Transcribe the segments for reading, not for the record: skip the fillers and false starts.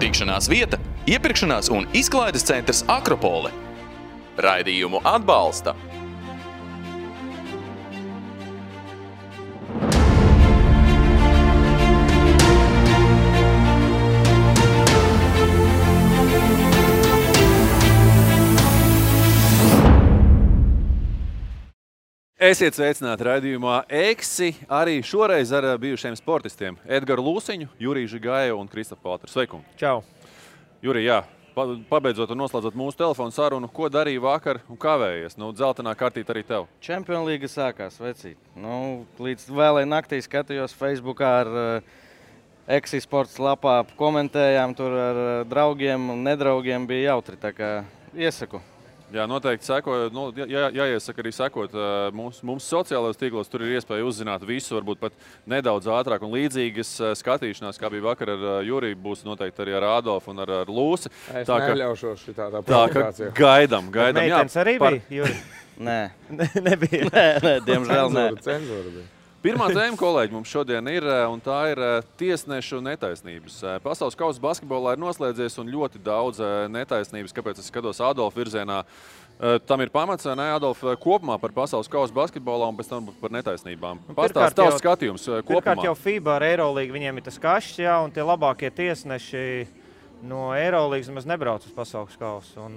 Tikšanās vieta, iepirkšanās un izklaides centrs Akropole. Raidījumu atbalsta Esiet sveicināti raidījumā Eksi, arī šoreiz ar bijušiem sportistiem Edgaru Lūsiņu, Juriju Žigāju un Kristofu Paltru. Sveikungi! Čau! Jurij, jā, pabeidzot un noslēdzot mūsu telefonu sarunu, ko darīja vakar un kavējies? Dzeltenā kartīte arī tev. Champions League sākās, vecīt. Līdz vēlai naktī skatījos Facebookā ar Eksi sports lapā, komentējām tur ar draugiem un nedraugiem, bija jautri, tā kā iesaku. Jā, noteikti sekojot, jāiesaka arī sekot mums sociālajos tīklos, tur ir iespēja uzzināt visu, varbūt pat nedaudz ātrāk un līdzīgas skatīšanās, kā bija vakar ar Juriju, būs noteikti arī ar Adolfu un ar Lūsi. Es neļaušos šitādā Tā provokācijā. kā gaidam. Meitenes arī bija, Juri? Nē. Nebija. Nē, diemžēl nē. Cenzūra bija. Pirmā tēma, kolēģi, mums šodien ir, un tā ir tiesnešu netaisnības. Pasaules kausa basketbolā ir noslēdzies un ļoti daudz netaisnības, kāpēc es skatos Adolfa virzienā. Tam ir pamats, ne, Adolf, kopumā par pasaules kausa basketbolā un pēc tam par netaisnībām. Pastāst tavs skatījums kopumā. Pirmkārt jau FIBA ar Eirolīgu, viņiem ir tas kašs, jā, un tie labākie tiesneši no Eirolīgas maz nebrauc uz pasaules kausu.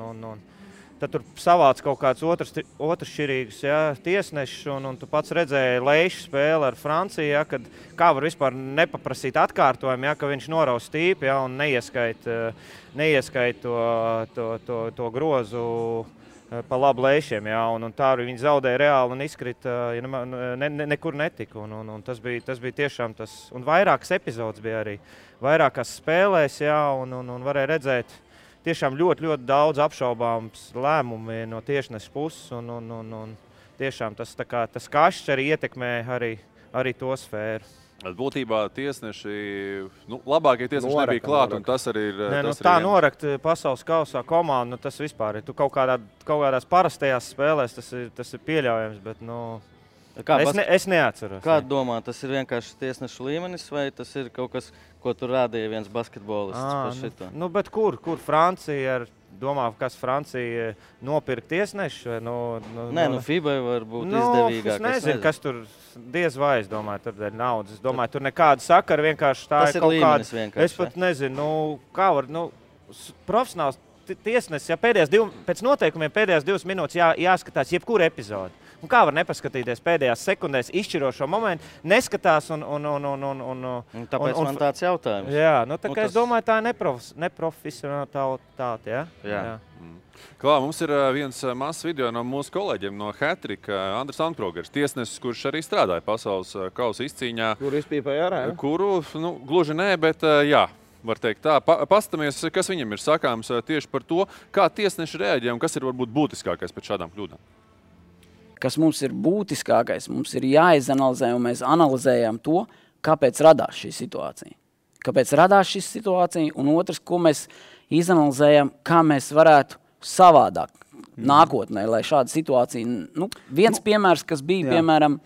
Tad tur savāc kaut kāds otršķirīgus tiesnešus, un tu pats redzēji Leišu spēli ar Franciju, kad kā var vispār nepaprasīt atkārtojumu, ka viņš noraus tīpi un neieskait to grozu pa labu Leišiem. Un tā arī viņi zaudēja reāli un izkrita, nekur netika. Un tas bija tiešām tas, un vairākas epizodes bija arī, vairākās spēlēs, un varēja redzēt, tiešām ļoti daudz apšaubāms lēmumi no tiesneša puses, un tiešām tas kašs arī ietekmē arī to sfēru. Būtībā tiesneši, labākie tiesneši nebija klāt, un tas arī ir... Tā norakt pasaules kausā komandu, tas vispār ir. Tu kaut kādās parastajās spēlēs tas ir pieļaujams, bet es neatceros. Kā domā, tas ir vienkārši tiesnešu līmenis, vai tas ir kaut kas, ko tur rādīja viens basketbolists par šito? Bet kur Francija domā, kas Francija nopirkt tiesnešu? Nē, FIBA var būt izdevīgāk. Es nezinu, kas tur diez vai, es domāju, tur dēļ naudas. Es domāju, tur nekāda sakara, vienkārši tā tas ir kaut līmenis kāda. Vienkārši. Es pat nezinu, kā var, profesionāls tiesnesis, pēc noteikumiem pēdējās 2 minūtes jāskatās jebkura epizode. Un kā var nepaskatīties pēdējās sekundēs izšķirošo momentu, neskatās tāpēc man tāds jautājums. Jā, tā kā es domāju, tā ir neprofesionalitāte, Jā. Klā, mums ir viens mazs video no mūsu kolēģiem no Hatrika, Andris Ankrogers, tiesnesis, kurš arī strādāja pasaules kausa izcīņā. Kur izpīpēja ārā? Kuru, gluži nē, bet jā. Var teikt tā. Pastamies, kas viņam ir sakāms tieši par to, kā tiesneši reaģē un kas ir varbūt būtiskākais pēc šādām kļūdām. Kas mums ir būtiskākais, mums ir jāizanalizē, un mēs analizējam to, kāpēc radās šī situācija. Kāpēc radās šī situācija, un otrs, ko mēs izanalizējam, kā mēs varētu savādāk nākotnē, lai šāda situācija... Viens piemērs, kas bija, piemēram,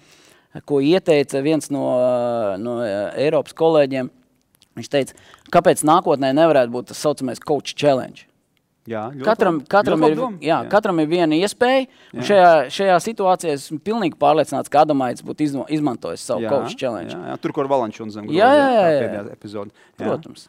ko ieteica viens no Eiropas kolēģiem, viņš teica, kāpēc nākotnē nevarētu būt tas saucamais coach challenge. Jā, katram ir viena iespēja, un šajā situācijā esmu pilnīgi pārliecināts, ka Adamaits būtu izmantojis savu coach challenge. Jā, tur, kur Valančs un zem pēdējā epizode. Protams.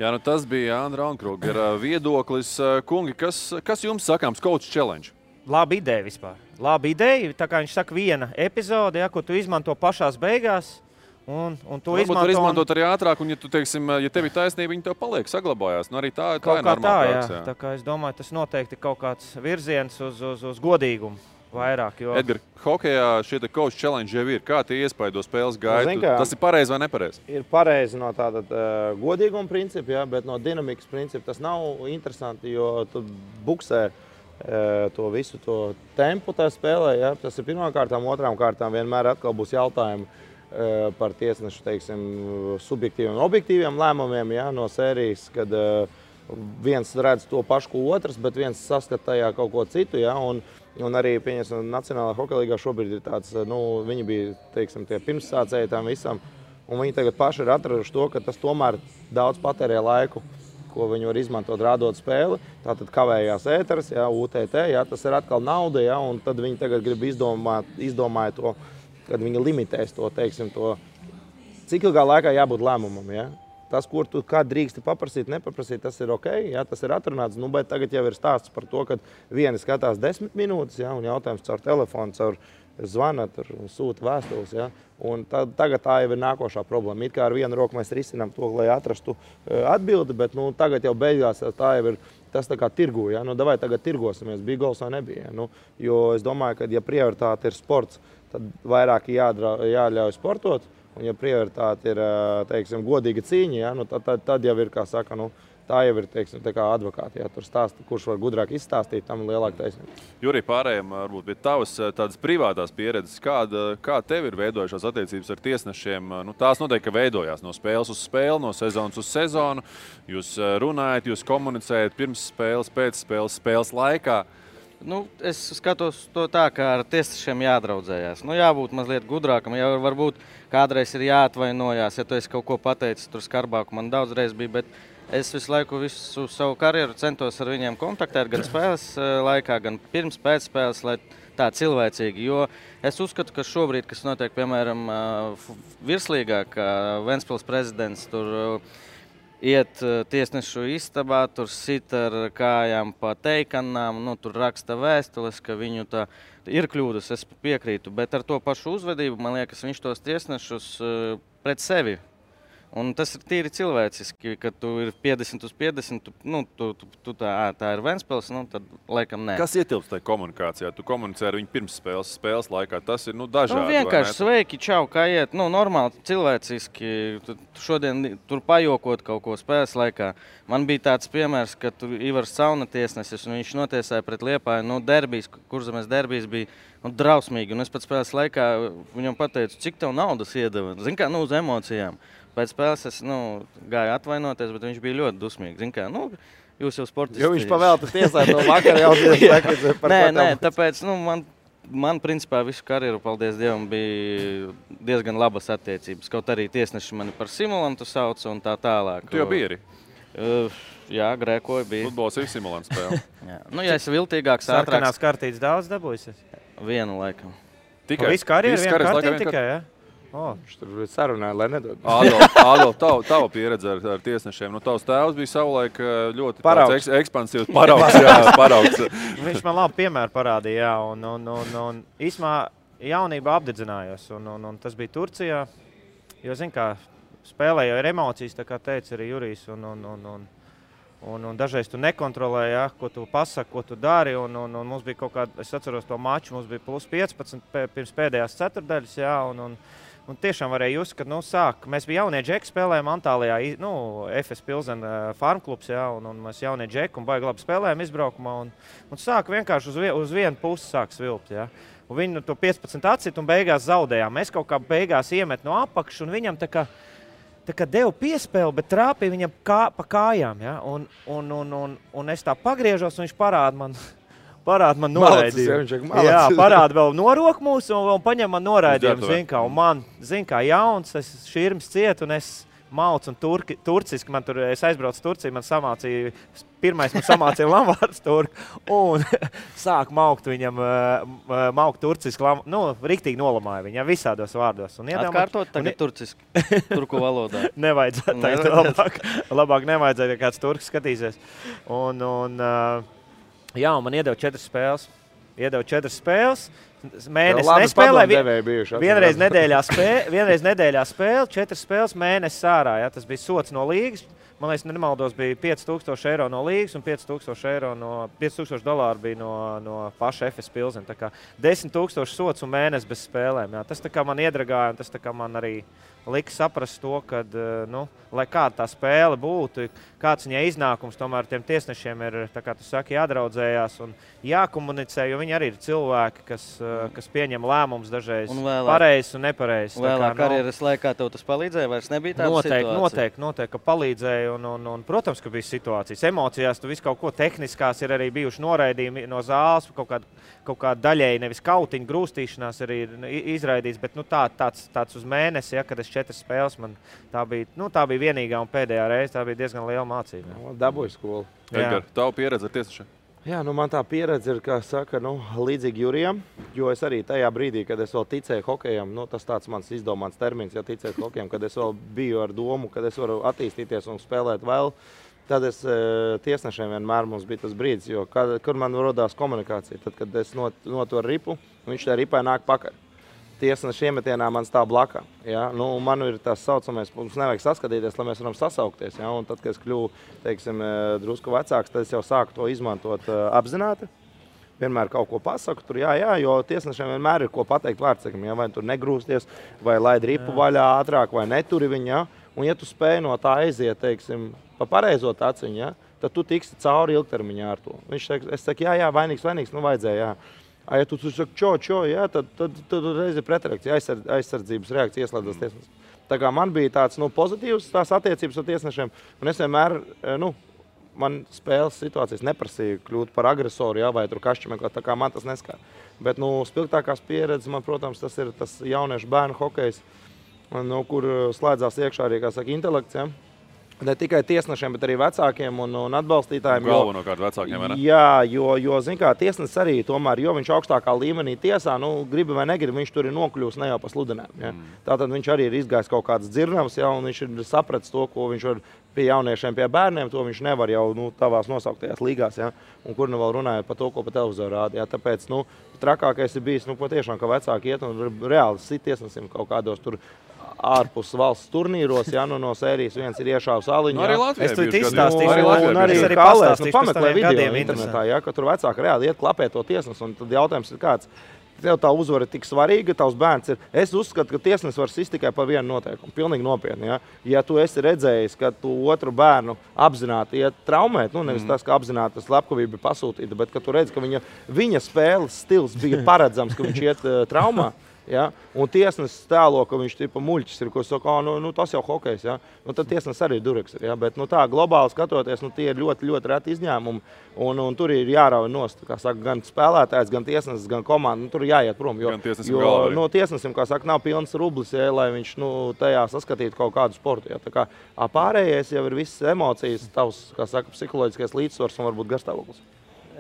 Jā, tas bija Andra Ankrogera viedoklis. Kungi, kas jums sakāms coach challenge? Laba ideja vispār. Laba ideja, tā kā viņš saka viena epizode, ko tu izmanto pašās beigās. Un to izmantot arī ātrāk, un ja tev ir taisnība, viņi tev paliek, saglabājās. Arī tā ir normāla praksa. Tā kā es domāju, tas noteikti kaut kāds virziens uz godīgumu vairāk. Edgar, hokejā šie coach challenge jau ir. Kā tie iespaido spēles gaitu? Tas ir pareizi vai nepareizi? Ir pareizi no tāda godīguma principa, bet no dinamikas principa tas nav interesanti, jo tu buksē to visu to tempu tā spēlē. Tas ir pirmām kārtām, otrām kārtām vienmēr atkal būs jautājumi par tiesnešu, subjektīviem un objektīviem lēmumiem no sērijas, kad viens redz to pašu, ko otrs, bet viens saskata tajā kaut ko citu. Un arī, pieņemsim, Nacionālajā hokeja līgā šobrīd ir tāds, viņi bija, tie pirmssācēji tam visam. un viņi tagad paši ir atraduši to, ka tas tomēr daudz patērē laiku, ko viņi var izmantot rādot spēli. Tātad kavējās ēteris, jā, UTT, jā, tas ir atkal nauda, jā, un tad viņi tagad grib izdomāja to, kad viņi limitēs to, teiksim, to, cik ilgā laikā jābūt lēmumam, jā. Tas, kur tu kā drīksti paprasīt, nepaprasīt, tas ir ok, jā, tas ir atrunāts, nu, bet tagad jau ir stāsts par to, ka vieni skatās 10 minūtes, jā, un jautājums caur telefonu, caur zvana, sūta vēstules, jā, un tagad tā jau ir nākošā problēma. It kā ar vienu roku mēs risinām to, lai atrastu atbildi, bet, nu, tagad jau beigās tā jau ir, tas tā kā tirgu, jā, nu, davai tagad tirgosimies, bija gols vai nebija, jā, nu, jo es domāju, ka, ja prioritāte ir sports, tad vairāk jāļauj sportot, un ja prioritāte ir, teiksim, godīga cīņa, ja, nu, tad jau ir, kā saka, nu, tā jau ir, teiksim, tā kā advokāti, ja tur stāsta, kurš var gudrāk izstāstīt, tam lielāka taisnība. Jurij, pārējiem varbūt pie tavas tādas privātās pieredzes, kā tev ir veidojušās attiecības ar tiesnešiem? Nu, tās noteikti, ka veidojās no spēles uz spēli, no sezonas uz sezonu. Jūs runājat, jūs komunicējat pirms spēles, pēc spēles, spēles laikā. Nu, es skatos to tā, ka ar tiesnešiem jādraudzējās. Nu, jābūt mazliet gudrākam, jau varbūt kādreiz ir jāatvainojās, ja tu esi kaut ko pateicis tur skarbāku. Man daudzreiz bija, bet es visu laiku visu savu karjeru centos ar viņiem kontaktēt, gan spēles laikā, gan pirms pēc spēles, lai tā cilvēcīgi. Jo es uzskatu, ka šobrīd, kas notiek, piemēram, virslīgā, ka Ventspils prezidents tur iet tiesnešu istabā, tur sit ar kājām pa teikanām, nu, tur raksta vēstules, ka viņu tā ir kļūdas, es piekrītu, bet ar to pašu uzvedību, man liekas, viņš tos tiesnešus pret sevi. Un tas ir tīri cilvēciski, kad tu ir 50 uz 50, tā ir Ventspils, nu, tad laikam nē. Kas ietilpst tajā komunikācijā? Tu komunicē ar viņu pirms spēles laikā. Tas ir dažādi. Nu, vienkārši sveiki, čau, kā iet. Nu, normāli, cilvēciski. Šodien tur pajokot kaut ko spēles laikā. Man bija tāds piemērs, ka tur Ivars Cauna tiesnesis, un viņš notiesāja pret Liepāju. Nu, derbijs, Kurzemes derbijs bija drausmīgi. Un es pēc spēles laikā viņam pateicu, cik tev naudas iedeva. Zini kā, uz emocijām. Pēc spēles es gāju atvainoties, bet viņš bija ļoti dusmīgs. Zini kā, jūs jau sportisti. Jo viņš pavēlta tiesā to vakar jau par Nē, tāpēc man principā visu karjeru, paldies Dievam, bija diezgan labas attiecības. Kaut arī tiesneši mani par simulantu sauca un tā tālāk. Tu jau biji arī? Jā, grēkoju bija. Futbols ir simulants spēle. Ja es viltīgāks, ātrāks. Sarkanās kartītes daudz dabūjusies? Vienu laikam. Tikai? Visu karjeru vienu kartīti tikai, ja? Viņš tur sarunāja, lai nedod. Ādol, tava pieredze ar tiesnešiem. Tavs tēvs bija savulaik ļoti ekspansīvs paraugs. Viņš man labi piemēru parādīja, jā, un īsmā jaunībā apdedzinājos, un tas bija Turcijā, jo, zin kā, spēlē jau ir emocijas, tā kā teica arī Jurijs, un dažreiz tu nekontrolē, ja, ko tu pasaki, ko tu dari, un mums bija kaut kāda, es atceros to maču, mums bija plus 15 pirms pēdējās ceturdaļas, jā, un tiešām varēja just, kad, mēs bija jaunie džeki, spēlējām Antālijā, FS Pilsen farmklubs, jā, un mēs jaunie džeki, un baigi labi spēlējām izbraukumā, un sāk vienkārši uz vienu pusi sāk svilpt, jā. Un viņi to 15 atcit un beigās zaudējām. Mēs kaut kā beigās iemet no apakšas, un viņam tā kā deva piespēli, bet trāpīja viņam pa kājām, ja? Un es tā pagriežos, un viņš parāda man noraidījumu. Jā, parāda vēl noroku mūsu un paņem man noraidījumu, zin kā jauns, es širms ciet, un es maucu un turciski, es aizbraucu Turciju, man samācīja lamvārds turku, un sāk maukt viņam, maukt turciski, riktīgi nolamāja viņam visādos vārdos. Atkārtot tagad turciski, turku valodā. Nevajadzētu, labāk nevajadzētu, ja kāds turks skatīsies. Jā, un man iedeva 4 spēles. Mēnesis nespēlēja. Vienreiz nedēļā spēle, 4 spēles, mēnesis ārā. Ja? Tas bija sots no līgas. Man liekas, nemaldos, bija 5000 eiro no līgas un $5000 bija no paša FS Pilsen. Tā kā 10 000 sots un mēnesis bez spēlēm. Ja? Tas tā kā man iedragāja, un tas tā kā man arī lika saprast to, ka, lai kāda tā spēle būtu, kāds viņai iznākums, tomēr tiem tiesnešiem ir, tā kā tu saki, jādraudzējās un jākomunicē, jo viņi arī ir cilvēki, kas pieņem lēmumus dažreiz pareizs un nepareizs. Vēlāk karjeras laikā tev tas palīdzēja, vairs nebija tāda situācija? Noteikti, ka palīdzēja un protams, ka bija situācijas. Emocijās tu visu kaut ko tehniskās ir arī bijuši noraidījumi no zāles, kaut kā daļēji nevis kautiņu grūstīšanās arī ir izraidīts, bet tāds uz mēnesi, ja, kad es 4 spēles. Man tā bija vienīgā un pēdējā reize. Tā bija diezgan liela mācība. Dabūju skolu. Edgar, tavu pieredzi ar tiesnešiem? Jā, man tā pieredze ir, kā saka, līdzīgi Jurijam, jo es arī tajā brīdī, kad es vēl ticēju hokejam, tas tāds mans izdomāts termins, ja ticēt hokejam, kad es vēl biju ar domu, kad es varu attīstīties un spēlēt vēl, tad es tiesnešiem vienmēr mums bija tas brīdis, jo kur man rodās komunikācija, tad, kad es notoru ripu, viņš tā ripai nāk pakaļ. Tiesneša iemetienā man stāv blakā. Ja? Man ir tas saucamais, mums nevajag saskatīties, lai mēs varam sasaukties. Ja? Un tad, kad es kļuvu, teiksim, drusku vecāks, tad es jau sāku to izmantot apzināti. Vienmēr kaut ko pasaku, tur jā, jo tiesnešiem vienmēr ir ko pateikt vārdsakam. Ja? Vai tur negrūsties, vai laid ripu vaļā ātrāk, vai neturi viņu. Ja? Un ja tu spēj no tā aiziet, teiksim, pa pareizo taciņu, ja? Tad tu tiksi cauri ilgtermiņā ar to. Viņš saka, es saku, jā, vainīgs, vajadzēja, jā. Ja tu saki, čo, jā, tad reiz ir pretreakcija, aizsardzības reakcija ieslēdzas tiesnesis. Tā kā man bija tāds pozitīvs tās attiecības ar tiesnešiem, un es vienmēr, man spēles situācijas neprasīja kļūt par agresoru, jā, vai tur kašķi, tā kā man tas neskar. Bet, spilgtākās pieredzes man, protams, tas ir tas jauniešu bērnu hokejs, kur slēdzās iekšā arī, kā saka, intelekts, jā. Ne tikai tiesnešiem, bet arī vecākiem un atbalstītājiem. Galvenokārt vecākiem, vai ne? Jā, jo zin kā, tiesnesis arī tomēr, jo viņš augstākā līmenī tiesā, gribi vai negribi, viņš tur ir nokļūst ne jau pa sludinēm. Ja? Tātad viņš arī ir izgājis kaut kādas dzirnavas, ja, un viņš ir sapratis to, ko viņš var pie jauniešiem, pie bērniem, to viņš nevar jau tavās nosauktajās līgās, ja? Un kur vēl runājot par to, ko pa televizoru rāda. Ja? Tāpēc, trakākais ir bijis, patiešām, ka vecāki iet un reāli sit tiesnesim kaut kādos tur ārpus valsts turnīros, ja, no sērijas viens ir iešāvis aliņu. Arī Latvijā es tur izstāstīšu, un arī pastāstīšu, pameklē video internetā, ja, ka tur vecāki reāli iet klapē to tiesnes, un tad jautājums ir kāds, tev tā uzvara ir tik svarīga, tavs bērns ir. Es uzskatu, ka tiesnes var sist tikai par vienu noteikumu, pilnīgi nopietni, ja. Ja tu esi redzējis, ka tu otru bērnu apzināti iet traumēt, nevis tas, ka apzināti tas slepkavība ir pasūtīta, bet ka tu redzi, ka viņa spēles stils bija paredzams, ka viņš iet traumā. Ja? Un tiesnesis tēlo, ka viņš tipa muļķis ir, ko saka, tas jau hokejs, ja? Tad tiesnesis arī dureks ir, ja? Bet tā globāli skatoties, tie ir ļoti, ļoti reti izņēmumi, un tur ir jārauj nost, kā saka, gan spēlētājs, gan tiesnesis, gan komanda, tur ir jāiet prom, jo tiesnesim, kā saka, nav pilns rublis, ja, lai viņš tajā saskatītu kaut kādu sportu, ja? Tā kā pārējais jau ir visas emocijas, tavs, kā saka, psiholoģiskais līdzsvars un varbūt garstāvoklis.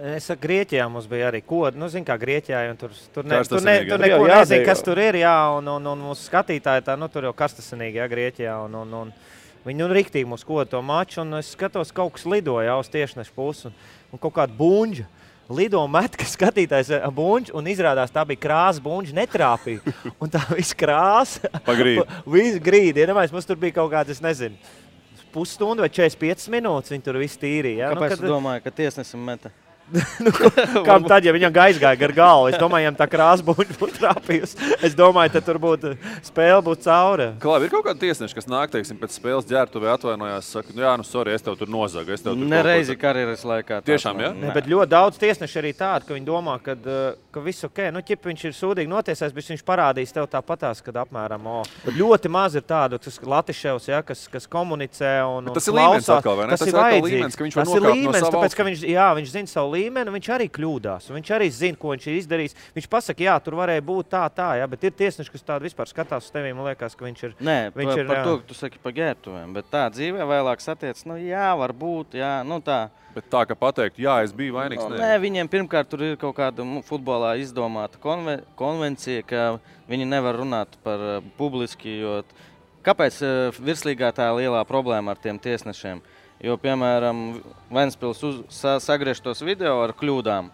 Es saku, Grieķijā mums bija arī kodi, zin kā Grieķijā, un tur neko nezinu, kas tur ir, jā, un mūsu skatītāji tā, tur jau karstasinīgi, jā, Grieķijā, un viņi riktīgi mūs koda to maču, un es skatos, kaut kas lidoja uz tiešnešu pusi, un kaut kāda buņģa lido met, ka skatītājs buņģi, un izrādās tā bija krāsa buņģi, netrāpīja, un tā viss krāsa, viss grīdi, mums tur bija kaut kāds, es nezinu, pusstundu vai 45 minūtes, viņi tur viss tīrīja. Kāpēc tu domāji, ka tiesnesim meta? Kam tad, ja viņam aizgāja gar galvu? Es domāju, ja tā krāsa būtu trāpījusi. Es domāju, tad tur būtu spēle būtu cauri. Klāvi, ir kaut kāda tiesneša, kas nāk, teiksim, pēc spēles ģērbtuvē atvainojās, saka, jā, sorry, es tev tur nozagu. Nereizi karjeras laikā. Tiešām, jā? Ne, bet ļoti daudz tiesneši arī tādi, ka viņi domā, ka viss ok. Ķip viņš ir sūdīgi notiesājis, bet viņš parādīs tev tāpatās, kad apmēram, Bet ļoti maz ir tādu, tas Latiševs, ja, kas komunicē un tas ir līmenis atkal, vai ne? Tas ir vajadzīgs. Tas ir līmenis, tāpēc, ka viņš zina savu līmeni, viņš arī kļūdās. Viņš arī zina, ko viņš ir izdarījis. Viņš pasaka, jā, tur varēja būt tā, jā, bet ir tiesneši, kas tādu vispār skatās uz tevī, man liekas, ka viņš ir. Nē, par to, ka tu saki par ģērbtuvēm, bet tā dzīvē vēlāk satiec, jā, varbūt, jā, tā. Bet tā, ka pateikt, jā, es biju vainīgs, nē, viņiem pirmkārt tur ir kaut kāda futbolā izdomāta konvencija, ka viņi nevar runāt par publiski, jo kāpēc virslīgā tā lielā problēma ar tiem tiesnešiem? Jo, piemēram, Ventspils sagriež tos video ar kļūdām,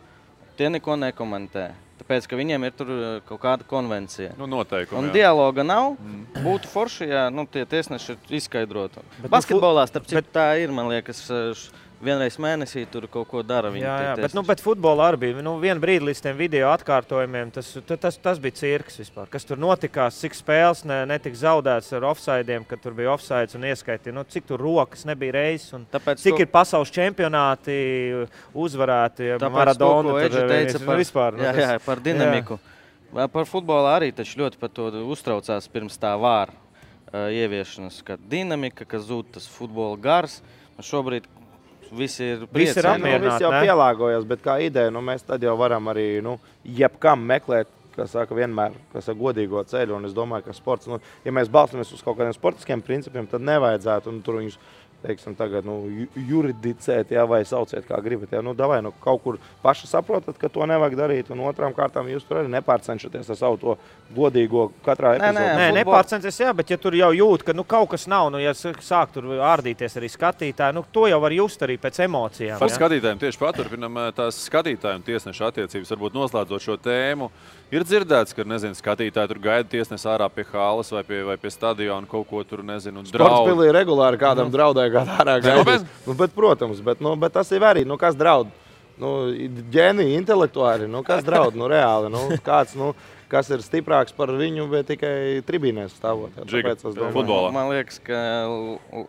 tie neko nekomentē. Tāpēc, ka viņiem ir tur kaut kāda konvencija. Noteikumi, un dialoga nav, būtu forši, ja tie tiesneši izskaidrotu. Basketbolā, starp citu, tā ir, man liekas, vienreiz mēnesī tur kaut ko dara. Jā, bet futbolā arī bija. Vienu brīdi līdz tiem video atkārtojumiem, tas bija cirks vispār. Kas tur notikās, cik spēles netika zaudēts ar offsidiem, kad tur bija offsides un ieskaitīja, cik tur rokas nebija reizes un cik ir pasaules čempionāti uzvarēti, Maradona. Tāpēc, ko teica vispār. Jā, par dinamiku. Jā. Par futbolā arī taču ļoti par to uztraucās pirms tā vāra ieviešanas, ka dinamika, ka zūd tas futbola gars. Šobrīd visi ir apmierināti. Visi jau pielāgojas, bet kā ideja, mēs tad jau varam arī jebkam meklēt kā saka, vienmēr godīgo ceļu, un es domāju, ka sports, ja mēs balstamies uz kaut kādiem sportiskiem principiem, tad nevajadzētu, un tur viņus, teiksim, tagad, juridicēt, vai sauciet, kā gribat, davai, kaut kur paši saprotat, ka to nevajag darīt, un otrām kārtām jūs tur arī nepārcenšaties ar savu to godīgo katrā epizodē. Nē, nepārcenties, jā, bet ja tur jau jūt, ka kaut kas nav, ja sāk tur ārdīties arī skatītāji, to jau var just arī pēc emocijām. Par skatītājiem tieši paturpinam tās skatītāju un tiesnešu attiecības, varbūt noslēdzot šo tēmu. Ir dzirdēts, ka, skatītāji tur gaida tiesnesi ārā pie hāles vai pie stadiona kaut ko tur, draud. Sportspilī regulāri kādam draudēja, kādā ārā gaidīs. Bet, protams, bet tas ir arī, kas draud? Ģēniji, intelektuāli, kas draud, reāli, kāds, kas ir stiprāks par viņu, bet tikai tribīnēs stāvot. Futbolā. Man liekas, ka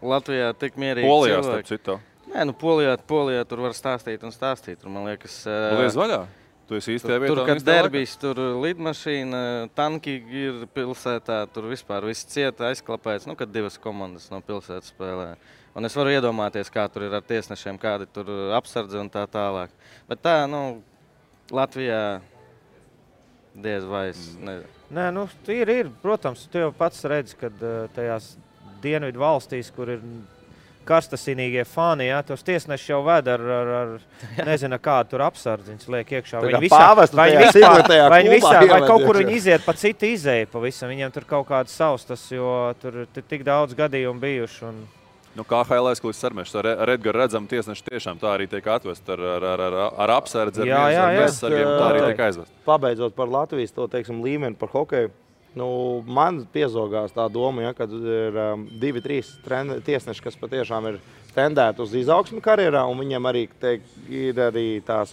Latvijā tik mierīgi Polijā, starp citu. Nē, Polijā tur var stāstīt un stāstīt. Man liekas, Lies vaļā. Tu esi īstajā vietā. Tur, kad derbijs, tur lidmašīna, tanki ir pilsētā, tur vispār viss cieta aizklapēts, kad divas komandas no pilsētas spēlē. Un es varu iedomāties, kā tur ir ar tiesnešiem, kādi tur apsardzi un tā tālāk. Bet tā, Latvijā diez vai es nezinu. Nē, ir, protams, tu jau pats redzi, kad tajās dienvidu valstīs, kur ir karstasinīgie fani, tos tiesneši jau ved ar nezinu, kādu tur apsardziņas liek iekšā. Vai kaut kur viņi iziet pa citu izēju pavisam. Viņiem tur kaut kāds savs, jo tur tik daudz gadījumu bijuši. KHL aizkulis sarmešs ar Edgaru redzam tiesneši tiešām tā arī tiek atvest ar apsardzi, ar bezsargiem, tā arī tiek aizvest. Pabeidzot par Latvijas to, teiksim, līmeni par hokeju, man piezogās tā doma, kad ir 2-3 tiesneši, kas patiešām ir tendēti uz izaugsmi karjerā, un viņiem arī ir arī tās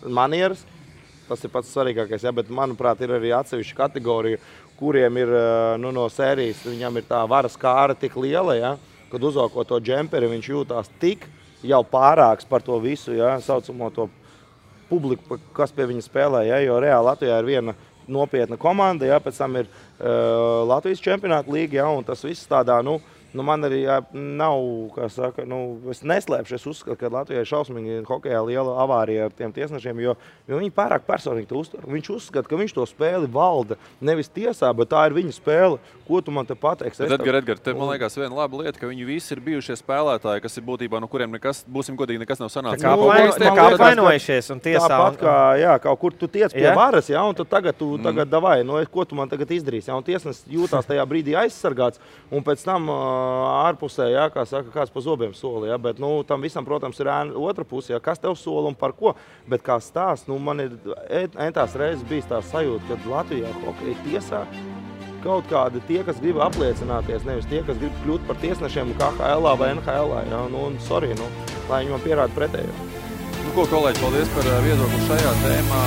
manieras. Tas ir pats svarīgākais, bet, manuprāt, ir arī atsevišķa kategorija, kuriem ir no sērijas, viņam ir tā varas kāra tik liela, kad uzvalko to džemperi, viņš jūtās tik jau pārāks par to visu, saucamo to publiku, kas pie viņa spēlē, jo reāli Latvijā ir viena nopietna komanda, pēc tam ir Latvijas čempionāta līga, un tas viss tādā, man arī nav, kā saka, es neslēpšu, es uzskatu, ka Latvijai šausmīgi hokejā liela avārija ar tiem tiesnešiem, jo viņi pārāk personīgi to uztver. Viņš uzskata, ka viņš to spēli valda nevis tiesā, bet tā ir viņa spēle. Ko tu man te pateiksi? Edgar, te man liekas viena laba lieta, ka viņi visi ir bijušie spēlētāji, kas ir būtībā, no kuriem nekas, būsim godīgi, nekas nav sanācis. Tā kā apvainojušies un tiesā. Tāpat kā, kaut kur tu tiec pie varas, un tu tagad davai, ko tu man tagad izdarīsi, un tiesnes jūtās tajā brīdī aizsargāts, un pēc tam ārpusē, kā saka, kāds pa zobiem soli, bet, tam visam, protams, ir otra puse, kas tev sola un par ko, bet kā stāsts, man ir entās reizes bijis tā sajūta, kad Latvijā hokeja tiesā kaut kādi tie, kas grib apliecināties, nevis tie, kas grib kļūt par tiesnešiem KHL vai NHL, sorry, lai viņi man pierāda pretējo. Ko, kolēģi, paldies par viedokli šajā tēmā.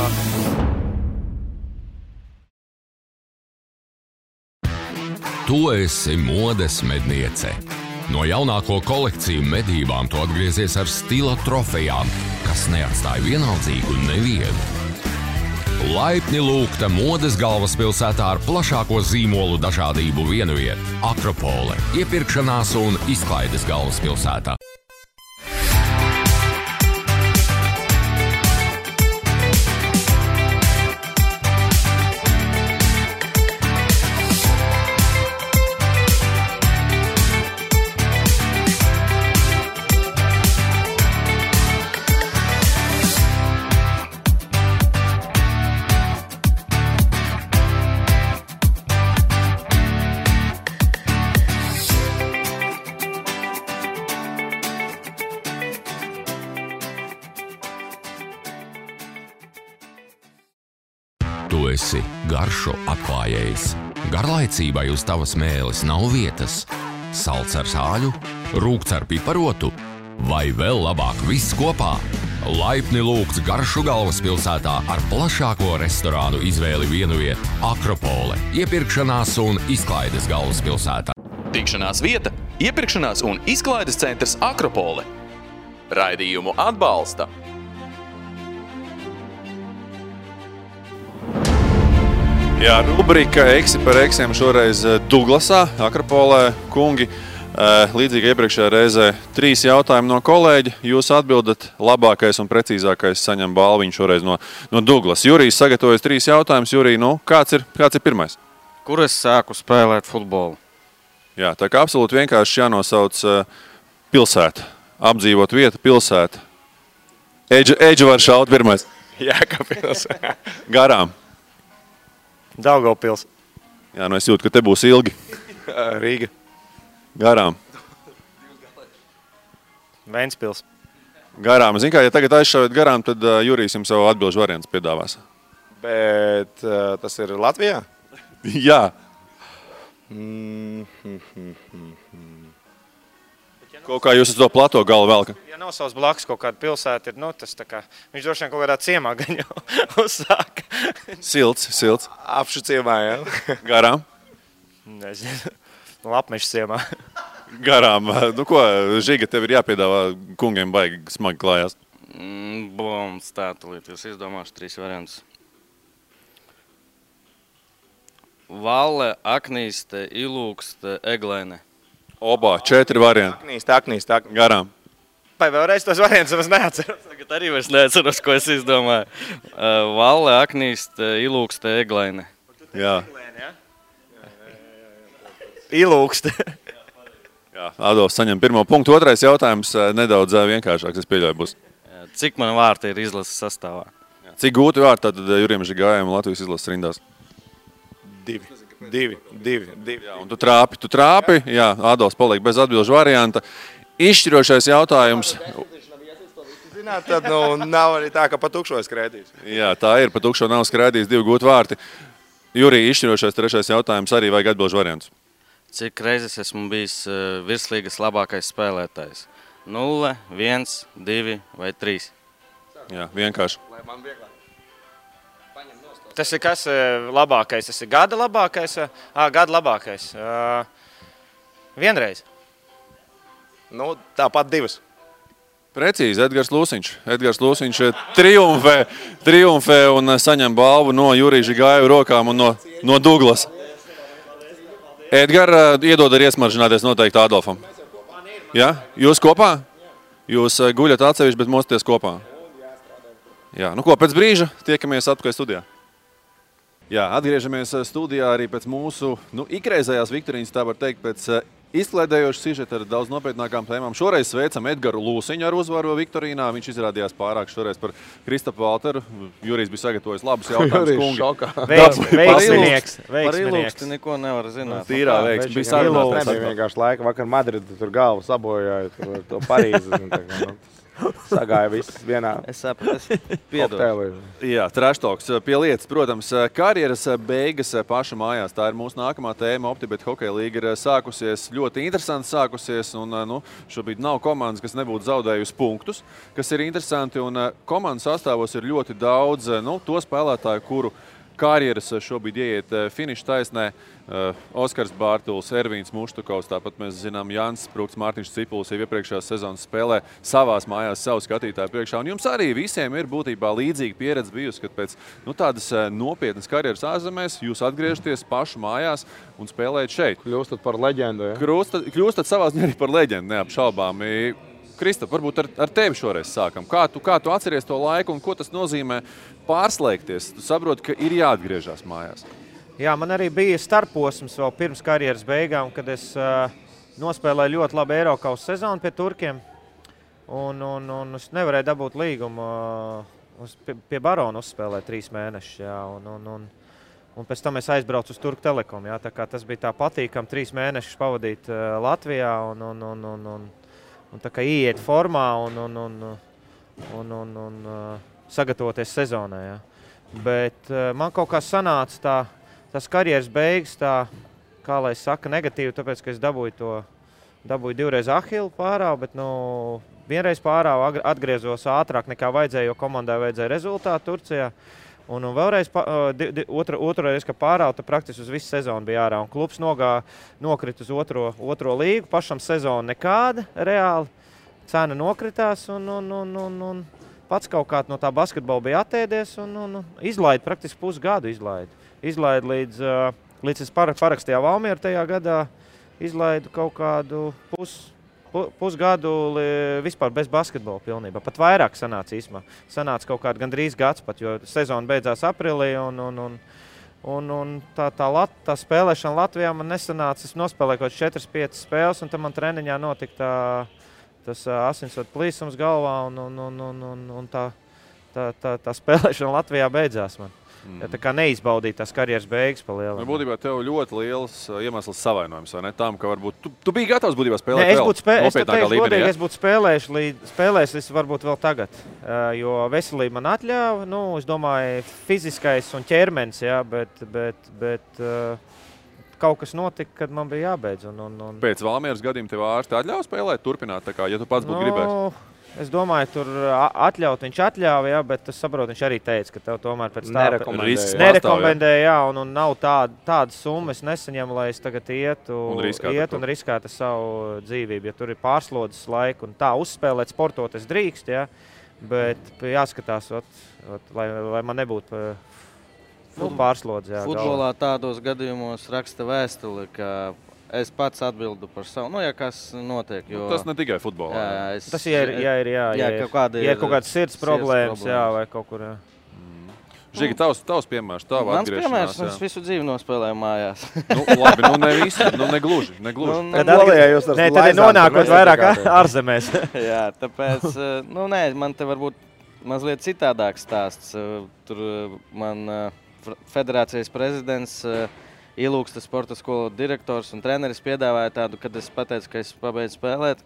Tu esi modes medniece. No jaunāko kolekciju medībām tu atgriezies ar stila trofejām, kas neatstāja vienaldzīgu nevienu. Laipni lūgta modes galvaspilsētā ar plašāko zīmolu dažādību vienviet – Akropole, iepirkšanās un izklaides galvaspilsētā. Tu esi garšu atklājējs. Garlaicībai uz tavas mēles nav vietas. Salds ar sāļu, rūkts ar piparotu vai vēl labāk viss kopā. Laipni lūgts garšu galvaspilsētā ar plašāko restorānu izvēli vienviet Akropole, iepirkšanās un izklaides galvaspilsētā. Tikšanās vieta, iepirkšanās un izklaides centrs Akropole. Raidījumu atbalsta Jā, rubrika Eksi par eksiem šoreiz Duglasā, Akropolē. Kungi, Līdzīgi iepriekšējā reizē 3 jautājumi no kolēģa. Jūs atbildat, labākais un precīzākais saņem balviņu šoreiz no Douglas. Jurijs sagatavojas 3 jautājumus. Jurij, kāds ir pirmais? Kur es sāku spēlēt futbolu? Jā, tā kā absolūti vienkārši jānosauc pilsēta. Apdzīvot vieta, pilsēta. Eģi var šaut pirmais. Jēkabpils. Garām. Daugavpils. Jā, es jūtu, ka te būs ilgi. Rīga. Garām. Ventspils. Garām. Zin kā, ja tagad aizšaujat garām, tad Jurijs jums savu atbilžu variants piedāvās. Bet tas ir Latvijā? Jā. Kaut kā jūs uz to plato galu velka? Ja nosauc blakus kaut kāda pilsēta, ir, tas tā kā, viņš droši vien kaut kādā ciemā gan jau uzsāka. Silts. Apšu ciemā, jā. Garām. Nezinu. Lapmešs ciemā. Garām. Ko, Žiga, tev ir jāpiedāvā kungiem baigi smagi klājās? Stātulīt, es izdomāšu 3 variantus. Valle, Aknīste, Ilūkste, Eglaine. Obā, 4 varianti. Aknīst. Garām. Vai vēlreiz tos variantus es neatceros? Tagad arī vairs neatceros, ko es izdomāju. Valle, Aknīste, Ilūkste, Eglaine. Jā. Ilūkste. Jā, Adolfs saņem 1. punktu. 2. jautājums nedaudz vienkāršāks, es pieļauju būs. Cik man vārti ir izlases sastāvā? Cik gūti vārti tad Jurijam Žigājam Latvijas izlases rindās? 2. Jā, un tu trāpi. Jā, Adolfs paliek bez atbilžu varianta. Izšķirošais jautājums. Zināt, tad nav arī tā, ka pa tukšo skrēdīs. Jā, tā ir. Pa tukšo nav skrēdījis 2 gūti vārti. Jurij, izšķirošais 3. jautājums arī vajag atbilžu variantus. Cik reizes esmu bijis virslīgas labākais spēlētājs? 0, 1, 2 vai 3? Jā, vienkārši. Tas ir kas labākais? Tas ir gada labākais? Gada labākais. Vienreiz. Tāpat 2. Precīzi, Edgars Lūsiņš triumfē un saņem balvu no Jurija Žigāja rokām un no Douglas. Edgar, iedod arī iesmaržināties noteikti Adolfam. Jā? Jūs kopā? Jūs guļat atsevišķi, bet mostaties kopā? Jā, pēc brīža tiekamies atpakaļ studijā. Jā, atgriežamies studijā arī pēc mūsu ikreizējās viktorīnas, tā var teikt, pēc izklaidējoša sižeta ar daudz nopietnākām tēmām. Šoreiz sveicam Edgaru Lūsiņu ar uzvaru viktorīnā. Viņš izrādījās pārāk šoreiz par Kristapu Valteru. Jurijs bija sagatavojis labus jautājumus. Jurijs šokā. Veiksminieks. Par Ilūksti neko nevar zināt. Tīrā veiksmi. Bija sarunāts. Nebija vienkārši laika. Vakar Madridu tur galvu sabojāja, to Parīzi. Sagāja viss vienā. Es sapratu, piedodu. Jā, trashtalks pie lietas. Protams, karjeras beigas paša mājās. Tā ir mūsu nākamā tēma. OptiBet hokeja līga ir sākusies, ļoti interesanti sākusies. Un, šobrīd nav komandas, kas nebūtu zaudējusi punktus, kas ir interesanti. Un komandas sastāvos ir ļoti daudz to spēlētāju, kuru karjeras šobrīd ieiet finiša taisnē. Oskars Bārtuls, Ervīns Muštukovs, tāpat mēs zinām Jānis Sprūks, Mārtiņš Cipulis jau iepriekšējās sezonas spēlē savās mājās savu skatītāju priekšā. Un jums arī visiem ir būtībā līdzīga pieredze bijusi, kad pēc tādas nopietnas karjeras ārzemēs jūs atgriežaties pašu mājās un spēlējat šeit. Kļūstat par leģendu, ja? Kļūstat savā ziņā arī par leģendu, neapšaubāmi. Kristap, varbūt ar tevi šoreiz sākam. Kā tu atceries to laiku un ko tas nozīmē pārslēgties? Tu saproti, ka ir jāatgriežas mājās. Jā, man arī bija starposms vēl pirms karjeras beigām, kad es nospēlēju ļoti labu Eirokaus sezonu pie turkiem. Un es nevarēju dabūt līgumu. Pie Barona uzspēlēju 3 mēnešus. Jā, un pēc tam es aizbraucu uz Turku Telekom. Jā, tā kā tas bija tā patīkam 3 mēnešus pavadīt Latvijā un tā kā ieiet formā un sagatavoties sezonai. Jā. Bet man kaut kā sanāca tas karjeras beigas, kā lai saka, negatīvi, tāpēc, ka es dabūju 2 reiz Ahilu pārāvu, bet vienreiz pārāvu atgriezos ātrāk nekā vajadzēja, jo komandai vajadzēja rezultātu Turcijā. Un vēlreiz otru reizi, ka pārāvu, tad praktiski uz visu sezonu bija ārā. Un klubs nokrit uz otro līgu, pašam sezonu nekāda reāli. Cena nokritās un pats kaut kā no tā basketbola bija atēdies un izlaida praktiski pusgadu. Izlaida līdz es parakstīju Valmieru tajā gadā. izlaidu kaut kādu pusgadu vispār bez basketbola pilnībā. Pat vairāk sanāca īsumā. Sanāca kaut kādu gandrīz gads pat, jo sezona beidzās aprīlī un tā spēlēšana Latvijā man nesanāca. Es nospēlēju kaut 4-5 spēles un tad man treniņā notika tas asinsvadu plīsums galvā un tā spēlēšana Latvijā beidzās man. Ja tā kā neizbaudīja tās karjeras beigas pa lielam. Būtībā tev ļoti liels iemesls savainojums, vai ne? Tām, ka varbūt tu biji gatavs būtībā spēlēt vēl nopietnākā līmenī. Es būtu spēlējis varbūt vēl tagad, jo veselība man atļāva. Es domāju, fiziskais un ķermenis, jā, bet kaut kas notika, kad man bija jābeidz. Pēc Valmieras gadījuma tev ārsti atļauj spēlēt, turpināt, tā kā, ja tu pats būtu gribējis? Es domāju, tur viņš atļāva, jā, bet es saprotu, viņš arī teica, ka tev tomēr pēc tā nerekomendēja, jā, un nav tādas summas nesaņem, lai es tagad ietu un riskētu savu dzīvību, ja tur ir pārslodzes laika un tā uzspēlēt sportot es drīkst, jā, bet jāskatās, lai man nebūtu pārslodze. Jā, futbolā tādos gadījumos raksta vēstuli, ka es pats atbildu par savu, ja kas notiek. Jo tas ne tikai futbolā. Tas ir kaut kādas sirds problēmas, jā, vai kaut kur, jā. Žigi, tavs piemērs, tava atgriešanās. Mans piemērs, es visu dzīvi nospēlēju mājās. Labi, ne visu, negluži. Tad ir nonākot vairāk ārzemēs. Jā, tāpēc, man te varbūt mazliet citādāks stāsts. Tur man federācijas prezidents Ilūkstes sporta skolu direktors un treneris piedāvāja tādu, kad es pateicu, ka es pabeidzu spēlēt,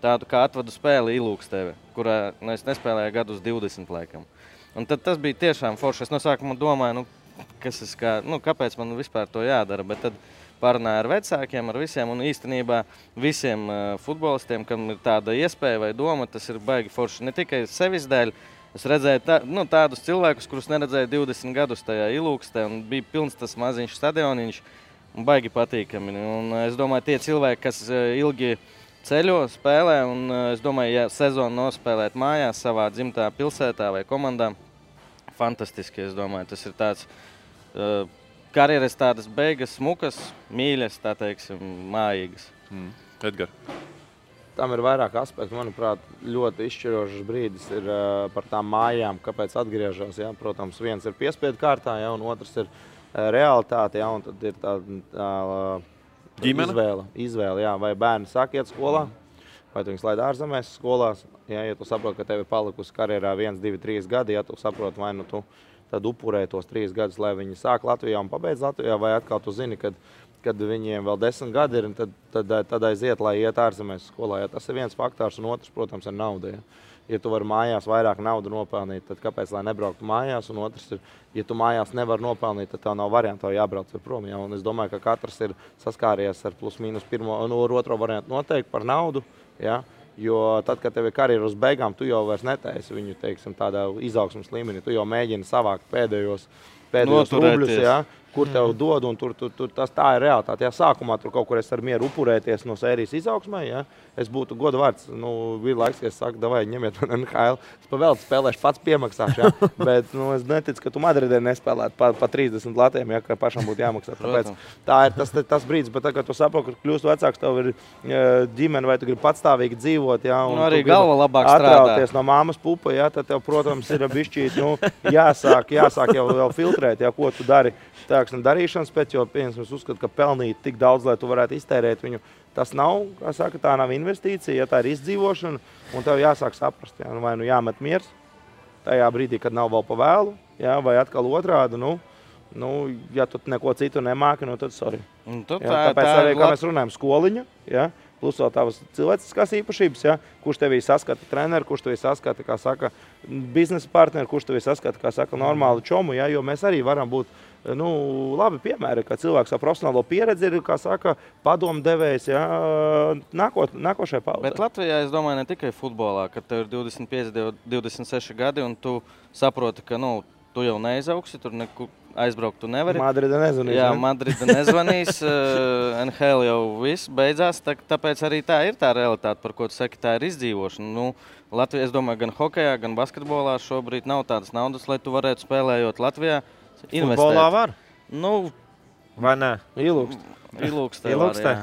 tādu kā atvadu spēli Ilūksteve, kurā es nespēlēju gadus 20 laikam. Un tad tas bija tiešām forši. Es no sākuma domāju, kāpēc man vispār to jādara, bet tad parunāju ar vecākiem, ar visiem, un īstenībā visiem futbolistiem, kam ir tāda iespēja vai doma, tas ir baigi forši ne tikai sevis dēļ. Es redzēju tādus cilvēkus, kurus neredzēju 20 gadus tajā Ilūkstē, un bija pilns tas maziņš stadioniņš, un baigi patīkami. Un es domāju, tie cilvēki, kas ilgi ceļo, spēlē, un es domāju, ja sezonu nospēlēt mājās savā dzimtā pilsētā vai komandā, fantastiski, es domāju. Tas ir tāds karjeras tādas beigas, smukas, mīļas, tā teiksim, mājīgas. Edgar. Tam ir vairāk aspektu. Manuprāt, ļoti izšķirošs brīdis ir par tām mājām, kāpēc atgriežas. Ja? Protams, viens ir piespiedu kārtā, ja? Un otrs ir realitāte. Ja? Un tad ir tā izvēle, ja? Vai bērni sāk iet skolā, vai tu viņus laid ārzemēs skolās. Ja tu saproti, ka tev ir palikusi karjerā 1, 2, 3 gadi, ja tu saproti, vai tu tad upurē tos 3 gadus, lai viņi sāk Latvijā un pabeidz Latvijā, vai atkal tu zini, kad viņiem vēl 10 gadi ir, tad aiziet, lai iet ārzemēs skolā. Ja tas ir viens faktors, un otrs, protams, ir nauda. Ja tu vari mājās vairāk naudu nopelnīt, tad kāpēc, lai nebrauktu mājās? Un otrs ir, ja tu mājās nevar nopelnīt, tad tev nav variantu, tev jābrauc prom. Ja? Un es domāju, ka katrs ir saskāries ar plus mīnus pirmo un otro variantu noteikti par naudu. Ja? Jo tad, kad tev ir karjeras uz beigām, tu jau vairs netaisi viņu, teiksim, tādā izaugsmas līmenī. Tu jau mēģini savākt pēdējos rubļus, ja, kur tev dod, un tā ir realitāte. Ja sākumā tur kaut kur es ar mieru upurēties no sērijas izaugsmai, ja, es būtu goda vārds. Bija laiks, ka es saku, davai, ņemiet man NHL. Es pa vēl spēlēšu, pats piemaksāšu, ja. Bet es neticu, ka tu Madridē nespēlētu pa 30 latiem, ja, ka pašam būtu jāmaksā. Tāpēc tā ir tas brīdis, bet tagad tu saproti, ka kļūst vecāks, tev ir ģimene, vai tu gribi patstāvīgi dzīvot, ja, un arī galva labāk strādā. No māmas pupa, ja, tad tev, protams, ir bišķīt, jāsāk jau filtrēt, ja, ko tu dari. Darīšanas pēc, jo es uzskatu, ka pelnīt tik daudz, lai tu varētu iztērēt viņu, tas nav, kā saka, tā nav investīcija, ja tā ir izdzīvošana, un tev jāsāk saprast, ja, vai jāmet miers tajā brīdī, kad nav vēl pa vēlu, ja, vai atkal otrādi, ja tu neko citu nemāki, tad sorry. Tāpēc arī, kā mēs runājam, skoliņa, ja, plus vēl tavas cilvēciskās īpašības, ja, kurš tevī saskata treneri, kurš tevī saskata, kā saka, biznesa partneri, kurš tevī saskata, kā saka, normālu čomu, ja, jo mēs arī varam būt labi piemēri, ka cilvēks ar profesionālo pieredzi ir, kā saka, padomdevējs, ja, nākošajai paudzei. Bet Latvijā, es domāju, ne tikai futbolā, kad tev ir 25, 26 gadi un tu saproti, ka, tu jau neizauksi, tur aizbraukt tu nevari. Madrida nezvanīs. Jā, Madrida nezvanīs, NHL jau viss beidzās, tāpēc arī tā ir tā realitāte, par ko tu saki, tā ir izdzīvošana. Latvijā, es domāju, gan hokejā, gan basketbolā šobrīd nav tādas naudas, lai tu varētu spēlējot Latvijā. Futbolā var? Vai ne? Ilūkstē var, jā.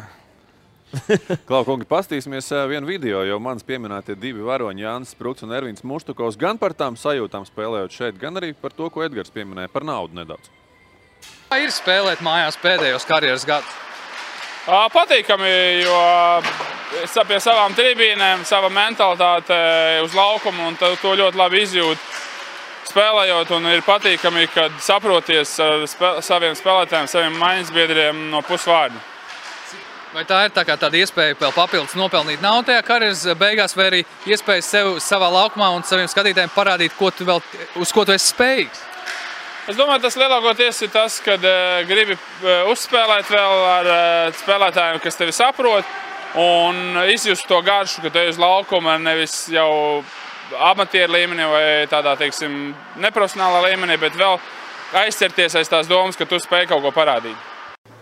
Klau, kungi, pastīsimies vienu video, jo mans pieminētie divi varoņi, Jānis Spruks un Ervins Muštukovs, gan par tām sajūtām spēlējot šeit, gan arī par to, ko Edgars pieminēja, par naudu nedaudz. Kā ir spēlēt mājās pēdējos karjeras gadus? Patīkami, jo pie savām tribīnēm, sava mentalitāte uz laukumu un to ļoti labi izjūt spēlējot. Un ir patīkami, kad saproties ar saviem spēlētājiem, saviem maiņasbiedriem no pusvārdu. Vai tā ir tāda iespēja vēl papildus nopelnīt naudu tajā karjeras beigās, vai arī iespēja sev savā laukumā un saviem skatītājiem parādīt, uz ko tu esi spējīgs? Es domāju, tas lielākoties ir tas, kad gribi uzspēlēt vēl ar spēlētājiem, kas tevi saprot, un izjust to garšu, ka tu ej uz laukuma nevis jau amatieru līmenī vai tādā, teiksim, neprofesionālā līmenī, bet vēl aizcerties aiz tās domas, ka tu spēj kaut ko parādīt.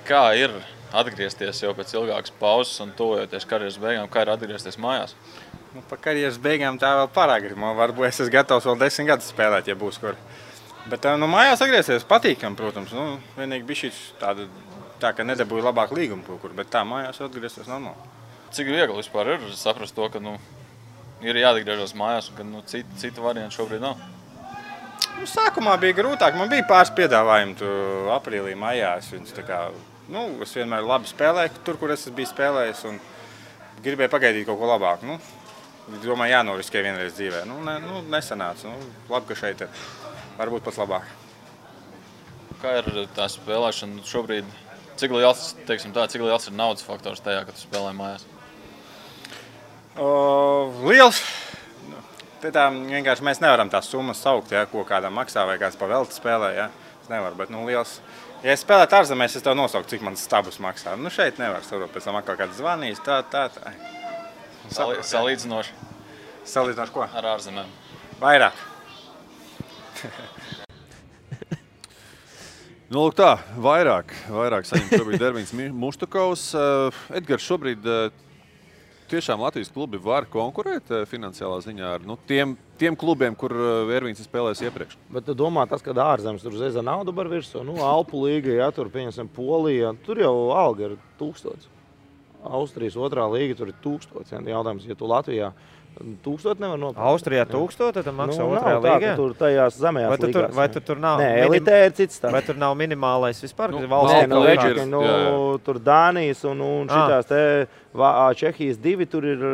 Kā ir atgriezties jau pēc ilgākas pauzes un tuvojoties karjeras beigām, kā ir atgriezties mājās? Par karjeras beigām tā vēl pārāk. Varbūt es esmu gatavs vēl 10 gadus spēlēt, ja būs kur. Bet mājās atgriezties patīkam, protams. Vienīgi bija šī tā, ka nedabūja labāk līgumu kaut kur, bet tā mājās atgriezties normāli. Cik viegli vispār ir saprast to, ka ir jāatgriežas mājās un ka citu variantu šobrīd nav? Sākumā bija grūtāk. Man bija pāris piedāvājumi aprīlī, maijās. Es vienmēr labi spēlēju tur, kur es biju spēlējis, un gribēju pagaidīt kaut ko labāku. Domāju, jānoriskē vienreiz dzīvē. Nesanāca. Labi, ka šeit ir. Varbūt pats labāk. Kā ir tā spēlēšana šobrīd? Cik liels ir naudas faktors tajā, kad tu spēlē mājās? Liels. Vienkārši mēs nevaram tās summas saukt, ko kādam maksā vai kāds pa velti spēlē. Es nevaru, bet liels. Ja es spēlētu ārzemēs, es tev nosauku, cik man stabus maksā. Šeit nevar saprot, pēc tam atkal kāds zvanīs, tā. Salīdzinoši? Salīdzinoši ko? Ar ārzemēm. Vairāk. Lūk tā, vairāk saņem šobrīd Ervins Muštukovs. Edgars, šobrīd tiešām Latvijas klubi var konkurēt finansiālā ziņā ar tiem klubiem, kur Ervins ir spēlējis iepriekš. Bet tu domā, tas, kad ārzemes tur zeza naudu bar virsū, Alpu līga, ja tur pieņemsim Polija, tur jau alga ir 1000. Austrijas otrā līga tur ir 1000. Jautājums, ja tu Latvijā 1000 nevar nopirkt. Austrijā 1000, tad maksā otrajā līgā? Tur tajās zemējās līgās. Vai tur nav? Nē, elitē ir cits tāds. Vai tur nav minimālais vispār? Tur Dānijas un šitās te Čehijas 2, tur ir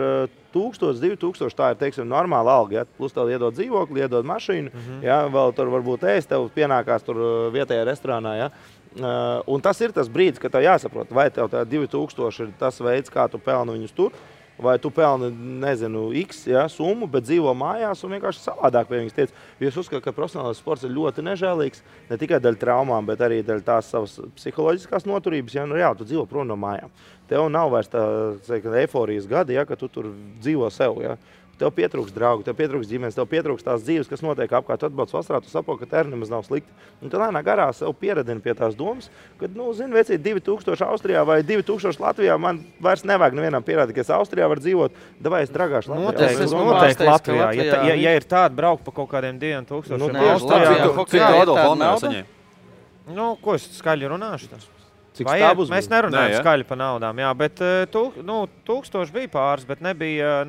1000, 2000, tā ir, teiksim, normāla alga. Ja? Plus tev iedod dzīvokli, iedod mašīnu, ja? Vēl tur varbūt ēst, tev pienākās tur vietējā restorānā. Ja? Un tas ir tas brīdis, kad tev jāsaprot, vai tev tā 2000 ir tas veids, kā tu pelni viņus tur, vai tu pelni, nezinu, X summu, bet dzīvo mājās un vienkārši savādāk pie viņas tiec. Jo es uzskatu, ka profesionālais sports ir ļoti nežēlīgs, ne tikai daļa traumām, bet arī daļa tās savas psiholoģiskās noturības. Ja? Reāli, tu dzīvo prom no mājām. Tev nav vairs tā eiforijas gadi, ja, ka tu tur dzīvo sev. Ja? Tev pietrūks draugu, tev pietrūks ģimenes, tev pietrūks tās dzīves, kas notiek apkārt. Tu atbrauc vasarā, tu saproti, ka tā nemaz nav slikti. Un tu lēnā garā sev pieradini pie tās domas, ka, zini, vecīt 2000 Austrijā vai 2000 Latvijā, man vairs nevajag nevienam pierādīt, ka es Austrijā varu dzīvot, davai es dragāšu Latvijā. Noteikti Latvijā. Ja ir tāda braukt pa kaut kādiem 2000 Austrijā, cik Adolfa Almēra saņēma? Ko es skaļi runāšu? Mēs nerunājam skaļi par naudām, jā, bet 1000 bija pāris, bet nebija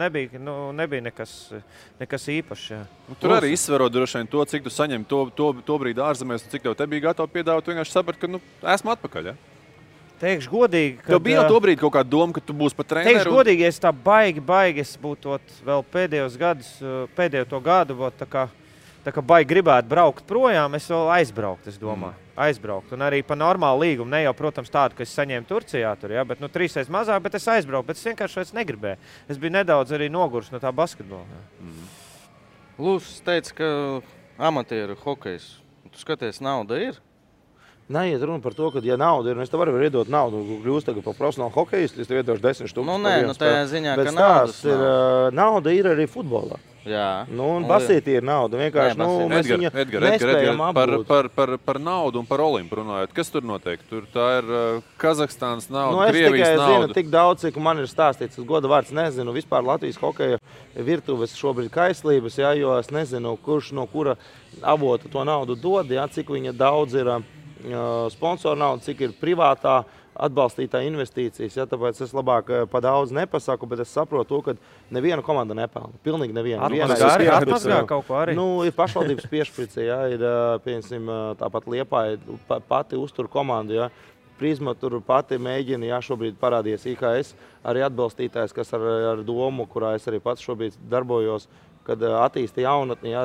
nekas īpašs. Jā. Tur arī izsverot droši vien to, cik tu saņem to brīdi ārzemēs, cik tev te bija gatavi piedāvāt, vienkārši saprat, ka esmu atpakaļ. Ja? Teikšu godīgi, ka... Tev bija jau to brīdi kaut kāda doma, ka tu būsi pat treneru? Teikšu godīgi, ja es tā baigi es būtu vēl pēdējo to gadu, tā kā baigi gribētu braukt projām, es vēl aizbraukt, es domāju. Aizbraukt. Un arī pa normālu līgumu, ne jau, protams, tādu, ka es saņēmu Turcijā tur, ja, bet 3 reizes mazāk, bet es aizbraucu, bet es vienkārši vairs negribēju. Es biju nedaudz arī nogurs no tā basketbola. Lūsis teica, ka amatieru hokejs, tu skaties, nauda ir? Neiet runa par to, ka, ja nauda ir, es tev varu iedot naudu, kļūst tagad par profesionālu hokejistu, es tev iedošu 10 000. Tajā ziņā, ka naudas nav. Nauda ir arī futbolā. Jā. Un basītī ir nauda. Vienkārši, mēs viņu nespējam apgūt. Par naudu un par Olimpu runājot. Kas tur notiek? Tur tā ir Kazahstānas nauda, Krievijas nauda. Es tikai zinu tik daudz, cik man ir stāstīts. Es goda vārds nezinu. Vispār Latvijas hokeja virtuves šobrīd kaislības, ja, jo es nezinu, kurš no kura avota to naudu dod, ja, cik viņa daudz ir sponsoru nauda, cik ir privātā atbalstītāji investīcijas, ja, tāpēc es labāk pa daudz nepasaku, bet es saprotu to, ka neviena komanda nepelna. Pilnīgi neviena. Atmazgā kaut ko arī. Ir pašvaldības piešprice, ja, ir, piemēram, tāpat Liepāja pati uztur komandu, ja. Prizma tur pati mēģina, jā, šobrīd parādījies IKS, arī atbalstītājs, kas ar domu, kurā es arī pats šobrīd darbojos, kad attīsta jaunatni, jā,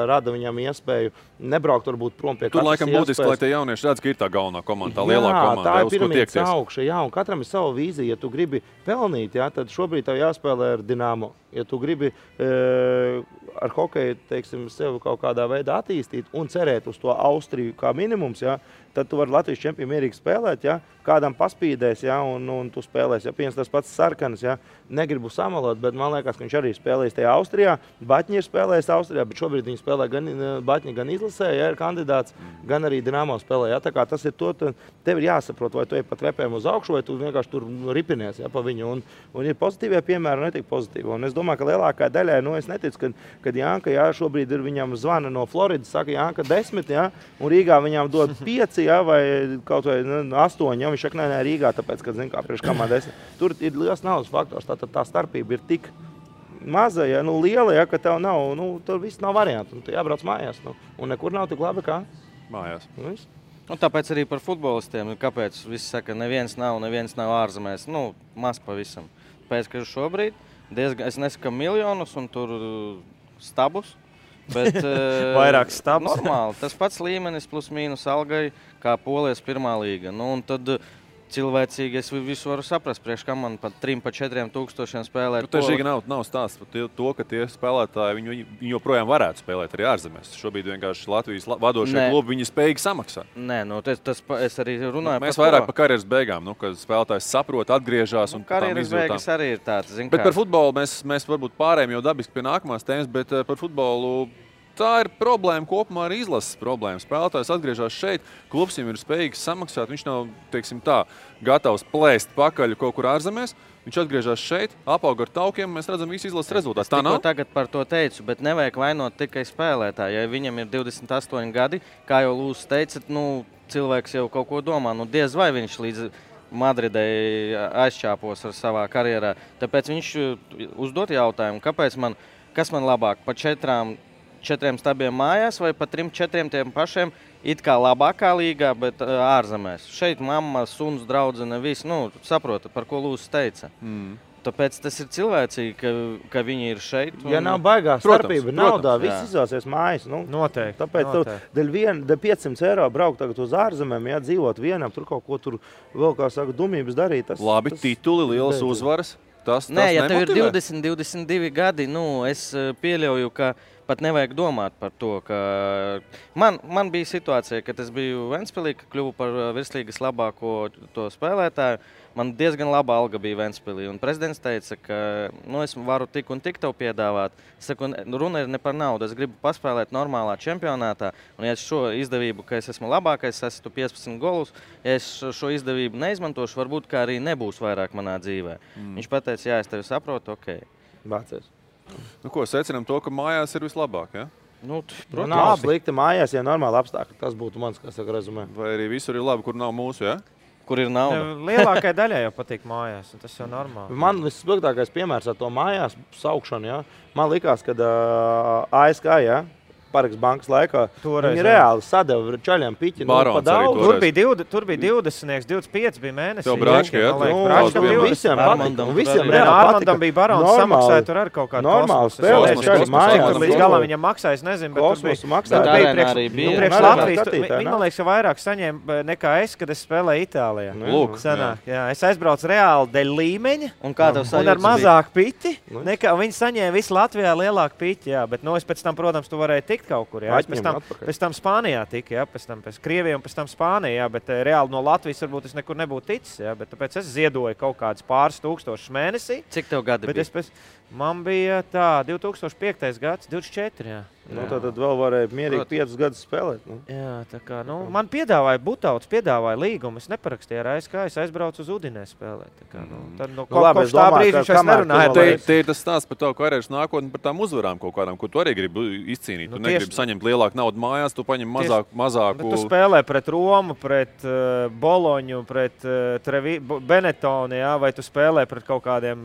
rada viņam iespēju nebraukt varbūt prom pie Tur laikam būtiski, lai tie jaunieši redz, ka ir tā galvenā komanda, tā lielā komanda, tā ir piramīdas augša, jā, un katram ir sava vīzija. Ja tu gribi pelnīt, jā, tad šobrīd tev jāspēlē ar Dinamo. Ja tu gribi ar hokeju, teiksim, sevi kaut kādā veidā attīstīt un cerēt uz to Austriju kā minimums, jā, tad tu vari Latvijas čempionu mierīgi spēlēt, jā, kādam paspīdēs, jā, un tu spēlēs. Ja piens tas pats Sarkanis, jā, negribu samalot, bet man liekas, ka viņš arī spēlēs tajā Austrijā. Baķņi ir spēlējis Austrijā, bet šobrīd viņi spēlē gan Baķņi, gan izlasē, ja ir kandidāts, gan arī Dinamo spēlē. Ja, tā kā tas ir to, tev ir jāsaprot, vai tu ej pat repēm uz augšu, vai tu vienkārši tur ripinies, ja, pa viņu. Un ir pozitīvie piemēri, un netik pozitīvi. Un es domāju, ka lielākā daļai, es neticu, kad Janka, jā, šobrīd ir viņam zvana no Floridas, saka Janka 10, jā, un Rīgā viņam dod 5, jā, vai kaut vai 8, jā, viņš saka, nē, Rīgā, tāpēc, kad, zin kā, priekš kamā 10. Tur ir liels naudas faktors, tātad tā starpība ir tik maza, ja, liela, ja, ka tev nav, tur viss nav variantu, tu jābrauc mājās, un nekur nav tik labi kā mājās. Tāpēc arī par futbolistiem, kāpēc visi saka, neviens nav ārzemēs, maz pavisam. Pēc, ka šobrīd diezgan, es nesaku miljonus un tur stabus, bet vairāk stabus. Normāli, tas pats līmenis plus mīnus algai, kā Polijas pirmā līga. Un tad cilvēcīgi es visu varu saprast, priekš kā man pat 3–4 tūkstošiem spēlēt. Tieši nav stāsts par to, ka tie spēlētāji viņi joprojām varētu spēlēt arī ārzemēs. Šobrīd vienkārši Latvijas vadošie klubi viņi spējīgi samaksāt. Nē, tas es arī runāju mēs vairāk par karjeras beigām, kad spēlētājs saprot, atgriežās un karjeras beigas arī ir tāds. Bet par futbolu mēs varbūt pārējām jau dabiski pie nākamās tēmas, bet par futbolu tā ir problēma kopumā ar izlases problēmu. Spēlētājs atgriežas šeit, klubs viņam ir spējīgs samaksāt, viņš nav, teiksim tā, gatavs plēst pakaļ kaut kur ārzemēs. Viņš atgriežas šeit, apaug ar taukiem, mēs redzam visu izlases rezultātus. Tā nav? Tagad par to teicu, bet nevajag vainot tikai spēlētāju. Ja viņam ir 28 gadi, kā jau Lūsis teica, cilvēks jau kaut ko domā. Diez vai viņš līdz Madridai aizčāpos ar savā karjerā. Tāpēc viņš uzdot jautājumu, kas man labāk pa 4 stabiem mājās vai pa 3–4 tiem pašiem it kā labākā līgā, bet ārzemēs. Šeit mamma, suns, draudzene, viss, saprota, par ko Lūsis teica. Tāpēc tas ir cilvēcīgi, ka viņi ir šeit. Ja nav baigā starpība naudā, viss izvēlsies mājas. Noteikti. Tāpēc dēļ 500 eiro braukt tagad uz ārzemēm, ja dzīvot vienam, tur kaut ko tur vēl, kā saka, dumības darīt. Labi, tituli, lielas uzvaras. Nē, ja tev ir 20, 22 gadi, es pieļauju, ka pat nevajag domāt par to, ka man bija situācija, kad es biju Ventspilī, ka kļuvu par virslīgas labāko to spēlētāju. Man diezgan laba alga bija Ventspilī, un prezidents teica, ka es varu tik un tik tev piedāvāt. Es saku, runa ir ne par naudu, es gribu paspēlēt normālā čempionātā, un ja es šo izdevību, ka es esmu labākais, es esmu 15 golus, ja es šo izdevību neizmantošu, varbūt kā arī nebūs vairāk manā dzīvē. Viņš pateica, jā, es tevi saprotu, ok. Bācies. Ko, secinām to, ka mājās ir vislabāk, ja? Protams, nav slikti mājās, ja normāli apstākļi. Tas būtu mans, kā saka, rezumē. Vai arī visur ir labi, kur nav mūsu, ja? Kur ir nauda? Lielākai daļai jau patīk mājās, un tas jau normāli. Man vissliktākais piemērs ar to mājās saukšanu, ja? Man likās, kad ASK, ja? Paraks bankas laikā. Viņi reāli sadeva čaļiem piķi. Tur bija 20, 25 bija mēnesī. Tev Bračka, Visiem Armandam bija barons, samaksāja tur ar kaut kādu normālu spēlēšanu. Līdz galā viņam maksāja, es nezinu, bet tur bija priekš Latvijas. Viņi, man liekas, vairāk saņēma nekā es, kad es spēlēju Itālijā. Es aizbraucu reāli dēļ līmeņa un ar mazāk piķi. Viņi saņēma visu Latvijā lielāku piķi, bet es pēc tam, protams, tu varēji tikt kaut kur, jā. Pēc tam Spānijā tika, jā, pēc Krievijā un pēc tam Spānijā, bet reāli no Latvijas varbūt es nekur nebūtu ticis, jā, bet tāpēc es ziedoju kaut kādus pāris tūkstošus mēnesī. Cik tev gadi bija? Man bija tā, 2005. gads, 24, jā. Nu, tad vēl varēja mierīgi 5 gadus spēlēt. Nu. Jā, tā kā, man piedāvāja Butauts, piedāvāja līgumu. Es neparakstīju ar ASK, es aizbraucu uz Udinē spēlēt. Tā kā, tad kopš tā brīža viņš vairs nerunāja. Te ir tas stāsts par tavu karjeras nākotni, par tām uzvarām kaut kādām, ko tu arī gribi izcīnīt. Tu negribi saņemt lielāku naudu mājās, tu paņem mazāku. Bet tu spēlē pret Romu, pret Boloņu, pret Benetonu, jā, vai tu spēlē pret kaut kādiem,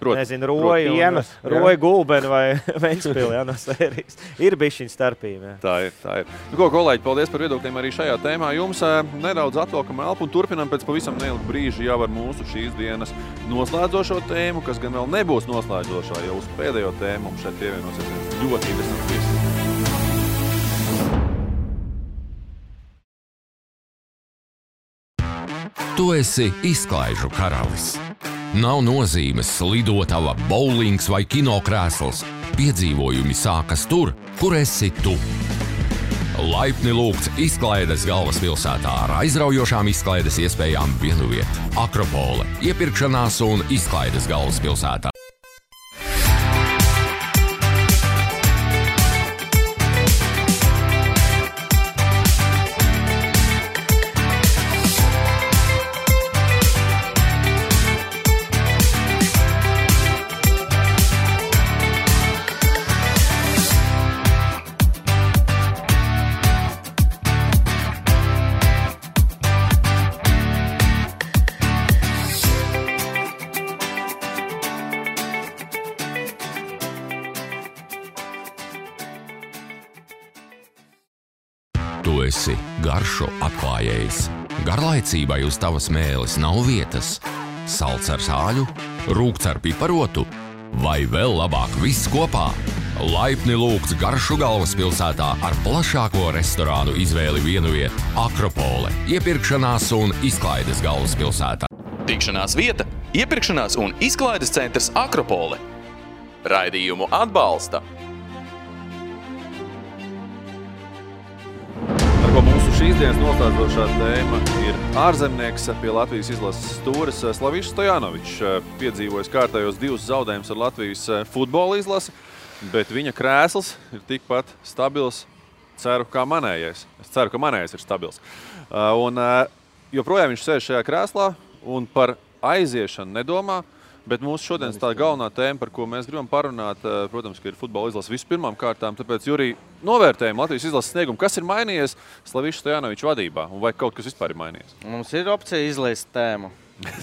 nezinu, Roju Gulbeni vai Ventspili, jā, no sērijas. Ir bišķiņa starpība. Tā ir. Nu, ko, kolēģi, paldies par viedokļiem arī šajā tēmā. Jums nedaudz atvelkam elpu un turpinam pēc pavisam neilga brīža jau ar mūsu šīs dienas noslēdzošo tēmu, kas gan vēl nebūs noslēdzošā, jau uz pēdējo tēmu mums šeit pievienosies viens ļoti interesants viesis. Tu esi izklaižu karalis. Nav nozīmes lidotava, bowlings vai kinokrēsls. Piedzīvojumi sākas tur, kur esi tu. Laipni lūgts izklaides galvaspilsētā ar aizraujošām izklaides iespējām vienuviet. Akropole, iepirkšanās un izklaides galvaspilsētā. Tu esi garšo atklājējs. Garlaicībai uz tavas mēles nav vietas. Salds ar sāļu, rūgts ar piparotu vai vēl labāk viss kopā. Laipni lūgts garšu galvaspilsētā ar plašāko restorānu izvēli vienuviet. Akropole, iepirkšanās un izklaides galvaspilsētā. Tikšanās vieta, iepirkšanās un izklaides centrs Akropole. Raidījumu atbalsta. Mūsu šīs dienas noslēdzošā tēma ir ārzemnieks pie Latvijas izlases stūres Slavišs Stojanovičs. Piedzīvojis kārtējos 2 zaudējumus ar Latvijas futbola izlasi, bet viņa krēsls ir tikpat stabils. Ceru, kā manējais. Es ceru, ka manējais ir stabils. Un joprojām viņš sēž šajā krēslā un par aiziešanu nedomā. Bet mūsu šodienas tā galvenā tēma, par ko mēs gribam parunāt, protams, ka ir futbola izlase vispirmām kārtām. Tāpēc, Jurij, novērtējam Latvijas izlases sniegumu. Kas ir mainījies Slaviša Stojanoviča vadībā? Un vai kaut kas vispār ir mainījies? Mums ir opcija izlaist tēmu.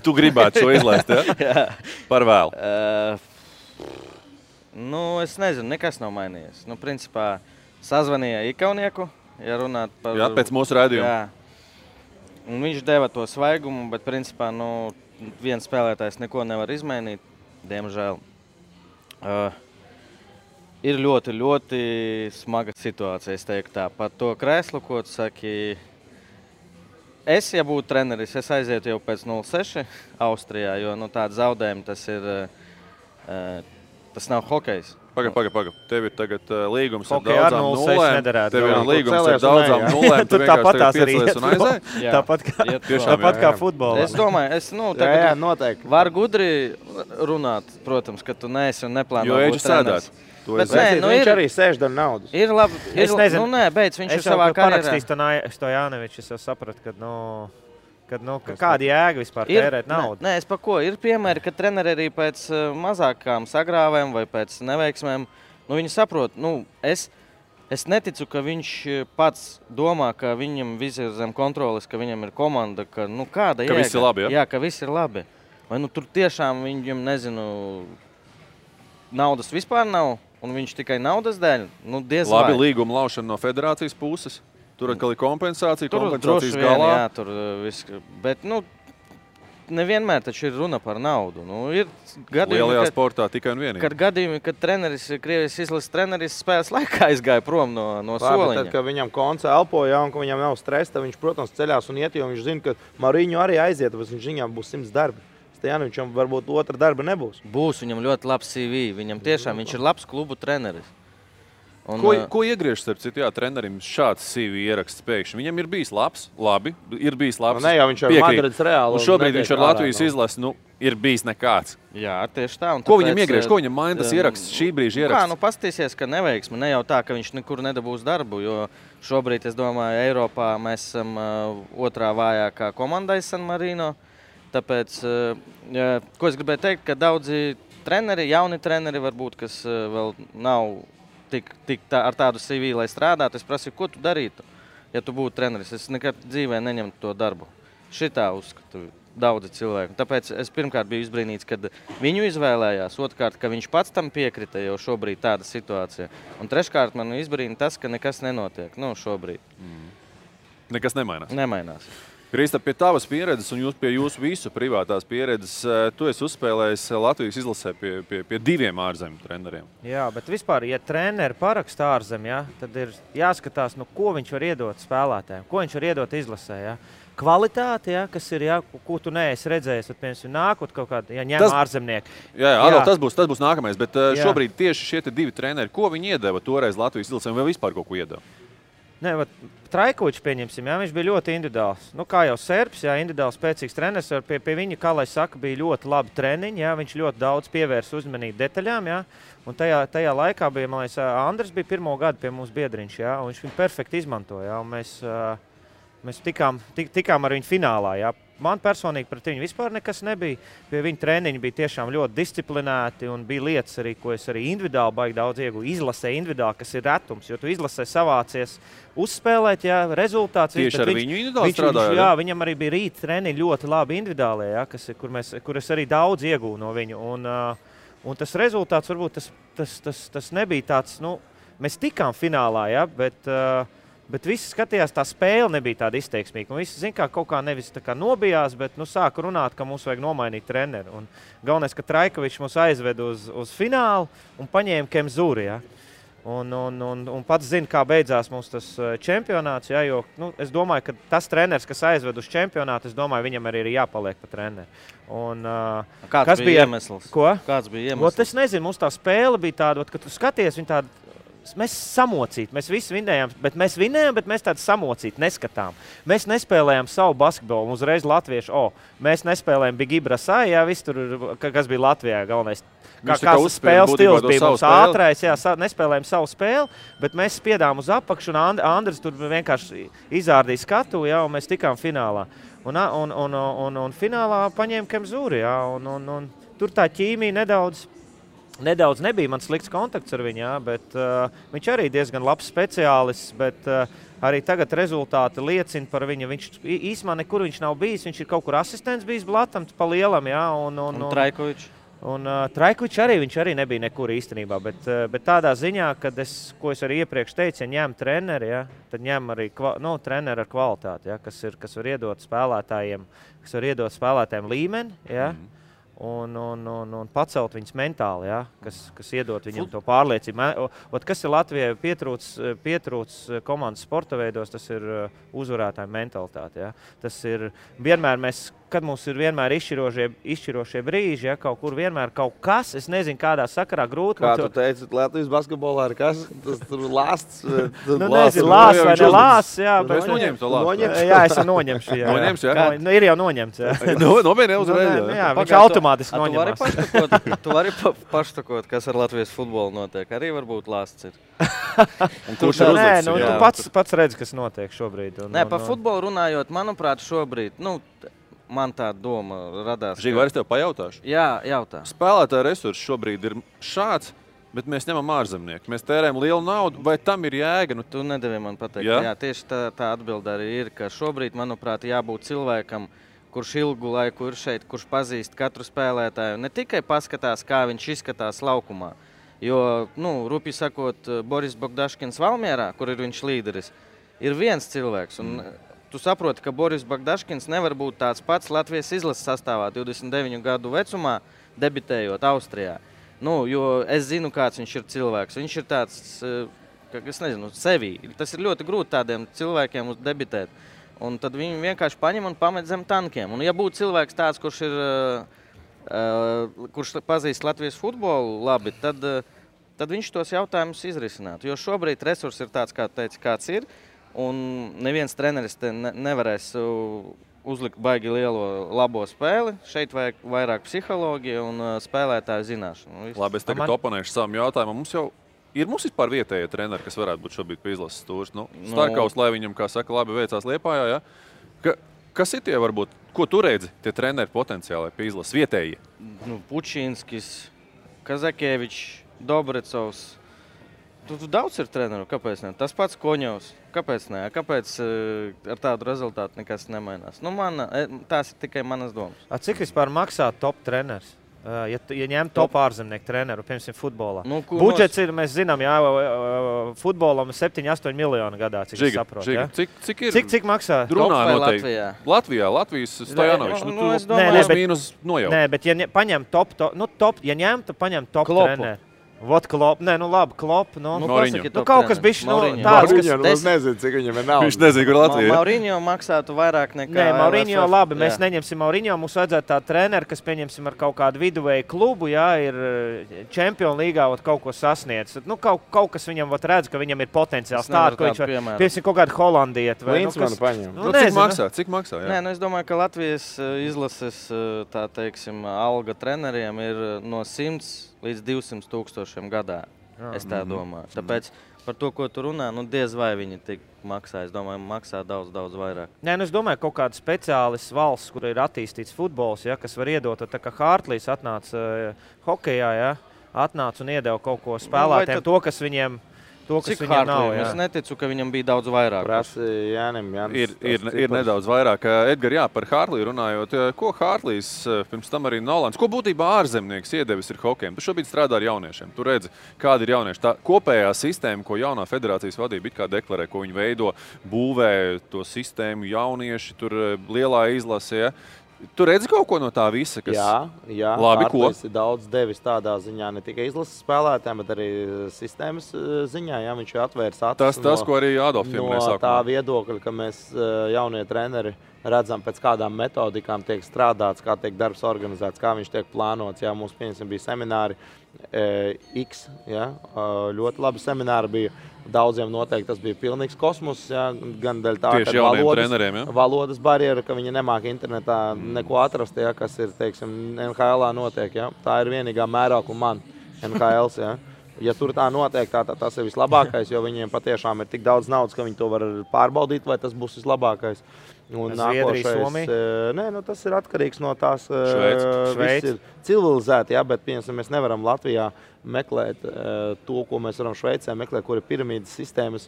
Tu gribētu šo izlaist, ja? Jā. Par vēlu. Es nezinu, nekas nav mainījies. Principā, sazvanīja Ikaunieku, ja runāt par... Jā, pēc mūsu raidījuma. Jā. Un viņš deva to svaigumu, bet principā, viens spēlētājs neko nevar izmainīt, diemžēl. Ir ļoti, ļoti smaga situācija, es teiktu tā. Par to krēslu, ko tu saki, ja būtu treneris, es aizietu jau pēc 0-6 Austrijā, jo tāda zaudējuma tas nav hokejs. Paga. Tev ir tagad līgums ar Hokejā daudzām 0-6 nulēm. nederētu. Tev ir līgums ar daudzām nulēm. Tu tāpat tās arī piecelies un aizēji. Tāpat kā futbolā. Es domāju, tagad var gudri runāt, protams, ka tu neesi un neplāno būt treneris. Bet viņš arī sēž dar naudas. Ir labi. Es nezinu. Beidz, viņš ir savā karjerā. Es jau parakstīs Stojanovičs, es jau sapratu, kāda jēga vispār tērēt naudu. Nē, es pa ko. Ir piemēri, ka treneri arī pēc mazākām sagrāvēm vai pēc neveiksmēm, viņi saprot, es neticu, ka viņš pats domā, ka viņam viss ir zem kontroles, ka viņam ir komanda, ka kāda jēga. Ka viss ir labi, ja? Jā, ka viss ir labi. Vai tur tiešām viņam, naudas vispār nav, un viņš tikai naudas dēļ? Diez vai. Labi, līguma laušana no federācijas puses. Tur atkal ir kompensācijas galā. Jā, tur viss. Bet, nevienmēr taču ir runa par naudu. Ir gadījumi, lielajā sportā tikai un vienīgi. Kad gadījumi, kad treneris, Krievijas izlases treneris spēles laikā aizgāja prom no soliņa. Tad, kad viņam konca elpoja un ka viņam nav stresa, viņš, protams, ceļās un iet, jo viņš zina, ka Mariņu arī aiziet, bet viņam būs 100 darbi. Stojanovičam varbūt otra darba nebūs. Būs, viņam ļoti labs CV. Viņam tiešām viņš ir labs klubu treneris. Ko iegriež, starp citu, trenerim šāds CV ieraksts pēkšņi? Viņam ir bijis labi, ir bijis labs. Ne, jau viņš ar Madrids Reālu. Un šobrīd viņš ar Latvijas izlasi, ir bijis nekāds. Jā, tieši tā. Ko viņam iegriež, ko viņam maina tas ieraksts, šī brīža ieraksts? Pastīsies, ka neveiksmi, ne jau tā, ka viņš nekur nedabūs darbu, jo šobrīd, es domāju, Eiropā mēs esam otrā vājākā komandai San Marino. Tāpēc, ko es gribēju teikt, ka daudzi treneri, jauni treneri varbūt, kas vēl nav ar tādu CV, lai strādātu, es prasīju, ko tu darītu, ja tu būtu treneris. Es nekad dzīvē neņemtu to darbu. Šitā uzskatu daudzi cilvēki. Tāpēc es pirmkārt biju izbrīnīts, kad viņu izvēlējās, otrkārt, ka viņš pats tam piekrita, jo šobrīd tāda situācija. Un treškārt man izbrīna tas, ka nekas nenotiek, šobrīd. Nekas nemainās? Nemainās. Kristap, pie tavas pieredzes un pie jūsu visu privātās pieredzes, tu esi uzspēlējis Latvijas izlasē pie 2 ārzemju treneriem. Jā, bet vispār, ja treneri paraksta ārzemē, tad ir jāskatās, ko viņš var iedot spēlētājiem, ko viņš var iedot izlasē. Kvalitāte, kas ir, ko tu neesi redzējis, tad, piemēram, nākot kaut kādu, ņem ārzemnieki. Jā, tas būs nākamais, bet šobrīd tieši šie 2 treneri, ko viņi iedeva toreiz Latvijas izlasē, vai vispār kaut ko iedeva? Trajkovičs, pieņemsim, viņš bija ļoti individuāls. Kā jau Serbs, individuāls spēcīgs treneris, pie viņa, kā lai saka, bija ļoti labi treniņi, viņš ļoti daudz pievērsa uzmanību detaļām, un tajā laikā bija, man liekas, Andris bija 1. gadu pie mums biedriņš, un viņš viņu perfekti izmantoja, un mēs tikām ar viņu finālā, Man personīgi pret viņu vispār nekas nebija. Pie viņa treniņi bija tiešām ļoti disciplinēti un bija lietas arī, ko es arī individuāli baigi daudz iegūju. Izlasē individuāli, kas ir retums, jo tu izlasē savācies uzspēlēt, rezultāts. Tieši ar viņu individuāli strādāja? Jā, viņam arī bija rīt treniņi ļoti labi individuālie, kur es arī daudz iegūju no viņu. Un tas rezultāts varbūt tas nebija tāds, mēs tikām finālā, bet visi skatījās, tā spēle nebija tāda izteiksmīga. Un visi, kā kaut kā nevis tā kā nobijās, bet sāka runāt, ka mums vajag nomainīt treneri. Un galvenais, ka Trajkovičs mūs aizved uz finālu un paņēma Kemzuri. Un pats zina, kā beidzās mums tas čempionāts. Jo es domāju, ka tas treneris, kas aizved uz čempionātu, es domāju, viņam arī ir jāpaliek pa treneri. Kāds bija iemesls? Ko? Kāds bija iemesls? Es nezinu, mums tā spēle bija tāda, ka tu skaties, viņa tāda. Mēs samocīti, mēs visi vinējām, bet mēs tādu samocīti neskatām. Mēs nespēlējām savu basketbolu, uzreiz latviešu, mēs nespēlējām Big Ibrasai, viss tur, kas bija Latvijā galvenais. Kāds spēles stils bija mums ātrais, nespēlējām savu spēli, bet mēs spiedām uz apakšu, un Andris tur vienkārši izārdīja skatu, un mēs tikām finālā. Un finālā paņēma Kemzuri, un tur tā ķīmija nedaudz nebija man slikts kontakts ar viņu, bet viņš arī diezgan labs speciālists, bet arī tagad rezultāti liecina par viņu. Viņš īsumā nekur viņš nav bijis, viņš ir kaut kur asistents bijis Blatam pa lielam, un Trajkovičs? Un Trajkovičs viņš arī nebija nekur īstenībā, bet tādā ziņā, ko es arī iepriekš teicu, ja ņem treneri, tad ņem arī treneri ar kvalitāti, kas var iedot spēlētājiem līmeni, un pacelt viņus mentāli, kas iedot viņam to pārliecību. Kas ir Latvijai pietrūc komandas sporta veidos, tas ir uzvarētāju mentalitāte. Tas ir vienmēr kad mums ir vienmēr izšķirošie brīži, kaut kur vienmēr kaut kas, es nezinu, kādā sakarā grūti. Kā tu teici, Latvijas basketbolā ir kas? Tas tur lāsts? Nezinu, lāsts vai ne lāsts, Es noņēmu to lāstu. Jā, es noņemšu, jā. Noņemts, jā? Ir jau noņemts, jā. Nopietni uzreiz, jā. Viņš automātiski noņemās. Tu vari paštakot, kas ar Latvijas futbolu notiek. Arī varbūt lāsts ir. Kurš ir uzlicis? Tu pats redzi, kas notiek šobrīd. Par futbolu runājot, manuprāt, šobrīd, man tā doma radās. Žiga, vai es tev pajautāšu? Jā, jautā. Spēlētāja resursi šobrīd ir šāds, bet mēs ņemam ārzemnieku. Mēs tērējam lielu naudu, vai tam ir jēga? Tu nedevi man pateikt. Jā, tieši tā atbilde arī ir, ka šobrīd, manuprāt, jābūt cilvēkam, kurš ilgu laiku ir šeit, kurš pazīst katru spēlētāju. Ne tikai paskatās, kā viņš izskatās laukumā. Jo, rupi sakot, Boris Bogdaškins Valmierā, kur ir viņš līderis, ir viens cilvēks. Un tu saproti, ka Boris Bogdaškins nevar būt tāds pats Latvijas izlases sastāvā 29 gadu vecumā, debitējot Austrijā. Jo es zinu, kāds viņš ir cilvēks. Viņš ir tāds, es nezinu, sevī. Tas ir ļoti grūti tādiem cilvēkiem debitēt. Un tad viņi vienkārši paņem un pamet zem tankiem. Un ja būtu cilvēks tāds, kurš pazīst Latvijas futbolu labi, tad tad viņš tos jautājumus izrisinātu. Jo šobrīd resurss ir tāds, kā teica, kāds ir, un neviens treneris te nevarēs uzlikt baigi lielo labo spēli. Šeit vajag vairāk psiholoģija un spēlētāju zināšanu. Labi, es tagad oponēšu savam jautājumam. Mums vispār vietējie treneri, kas varētu būt šobrīd pie izlases stūris. Starkaus, lai viņam, kā saka, labi veicās Liepājā, ja? Kas ir tie varbūt, ko tu redzi, tie treneri potenciāli pie izlases vietējie? Pučinskis, Kazakievičs, Dobrecovs. Tu daudz ir treneru, kāpēc ne? Tas pats Koņovs. Kāpēc ne? Kāpēc ar tādu rezultātu nekas nemainās? Tās ir tikai manas domas. Cik vispār maksā top treneris? Ja ņem top ārzemnieku treneru, piemēram, futbolā. Budžets ir, mēs zinām, futbolam 7-8 miljoni gadā, cik es saprotu. Ja? Cik maksā? Drunā noteikti. Latvijas Stojanovičs. Nē, bet ja paņem ja ņemtu, paņem top treneru. Vot Klopp, Klopp, kaut kas bišķi tāds, kas... Es nezinu, cik viņam ir nauda. Viņš nezinu, kur Latvija. Maurinho maksātu vairāk nekā... Nē, Maurinho labi, mēs neņemsim Maurinho, mums vajadzētu tā treneri, kas pieņemsim ar kaut kādu viduvēju klubu, ir Čempionu līgā kaut ko sasniedz. Kaut kas viņam redz, ka viņam ir potenciāls tādu, ko viņš var... Piemēram, kaut kādu holandieti. Klinsmanu paņem. Cik maksā? Nē, es domāju, ka Latvijas izlases, tā teiksim, alga treneriem ir no 100 līdz 200 000 gadā, es tā domāju. Tāpēc par to, ko tu runā, diez vai viņi tik maksā. Es domāju, maksā daudz vairāk. Nē, es domāju, kaut kāda speciālis valsts, kur ir attīstīts futbols, kas var iedot, tā kā Hārtlīs atnāca hokejā, atnāca un iedeva kaut ko spēlētiem, to, kas viņiem... Cik Hārtlī? Es neticu, ka viņam bija daudz vairāk. Ir nedaudz vairāk. Edgar, par Hārtlī runājot, ko Hārtlīs, pirms tam arī Nolans, ko būtībā ārzemnieks iedevis ir hokejam? Tu šobrīd strādā ar jauniešiem. Tu redzi, kādi ir jaunieši. Tā kopējā sistēma, ko jaunā federācijas vadība it kā deklarē, ko viņi veido, būvē to sistēmu jaunieši, tur lielā izlasē. Tu redzi kaut ko no tā visa, kas... Jā, labi, ko? Ir daudz devis tādā ziņā, ne tikai izlases spēlētājiem, bet arī sistēmas ziņā. Jā, viņš ir atvērs acis tas, ko arī Adolf pieminēja sākumā. No tā viedokļa, ka mēs jaunie treneri redzam, pēc kādām metodikām tiek strādāts, kā tiek darbs organizēts, kā viņš tiek plānots. Jā, mums, piemēram, bija semināri X, ļoti labi semināri bija. Daudziem noteikti tas bija pilnīgs kosmos, gan dēļ tā, ka valodas barjera, ka viņi nemāk internetā neko atrast, kas ir, teiksim, NHL-ā notiek. Tā ir vienīgā mērākuma man NHL-s. Ja tur tā notiek, tas ir vislabākais, jo viņiem patiešām ir tik daudz naudas, ka viņi to var pārbaudīt, vai tas būs vislabākais. Un nākošais, tas ir atkarīgs no tās viss ir civilizēti, bet, piemēram, mēs nevaram Latvijā meklēt to, ko mēs varam Šveicē meklēt, kur ir piramīdas sistēmas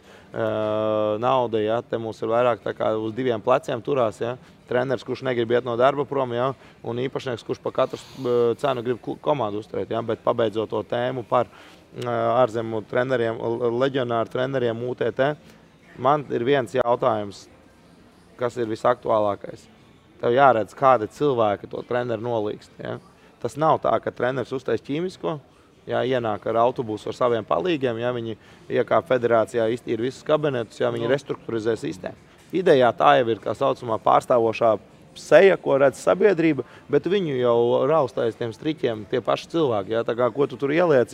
nauda, te mums ir vairāk tā kā uz diviem pleciem turās, treneris, kurš negrib iet no darba prom, un īpašnieks, kurš pa katru cenu grib komandu uzturēt, bet pabeidzot to tēmu par ārzemu treneriem, leģionāru treneriem UTT, man ir viens jautājums, kas ir visaktuālākais. Tev jāredz, kādi cilvēki to treneru nolīgst. Tas nav tā, ka treneris uztais ķīmisko, ienāk ar autobusu ar saviem palīgiem, viņi iekāp federācijā, iztīra visus kabinetus, viņi restruktūrizē sistēmu. Idejā tā jau ir, kā saucamā, pārstāvošā seja, ko redz sabiedrība, bet viņu jau raustājas tiem striķiem tie paši cilvēki. Tā kā, ko tu tur ieliec,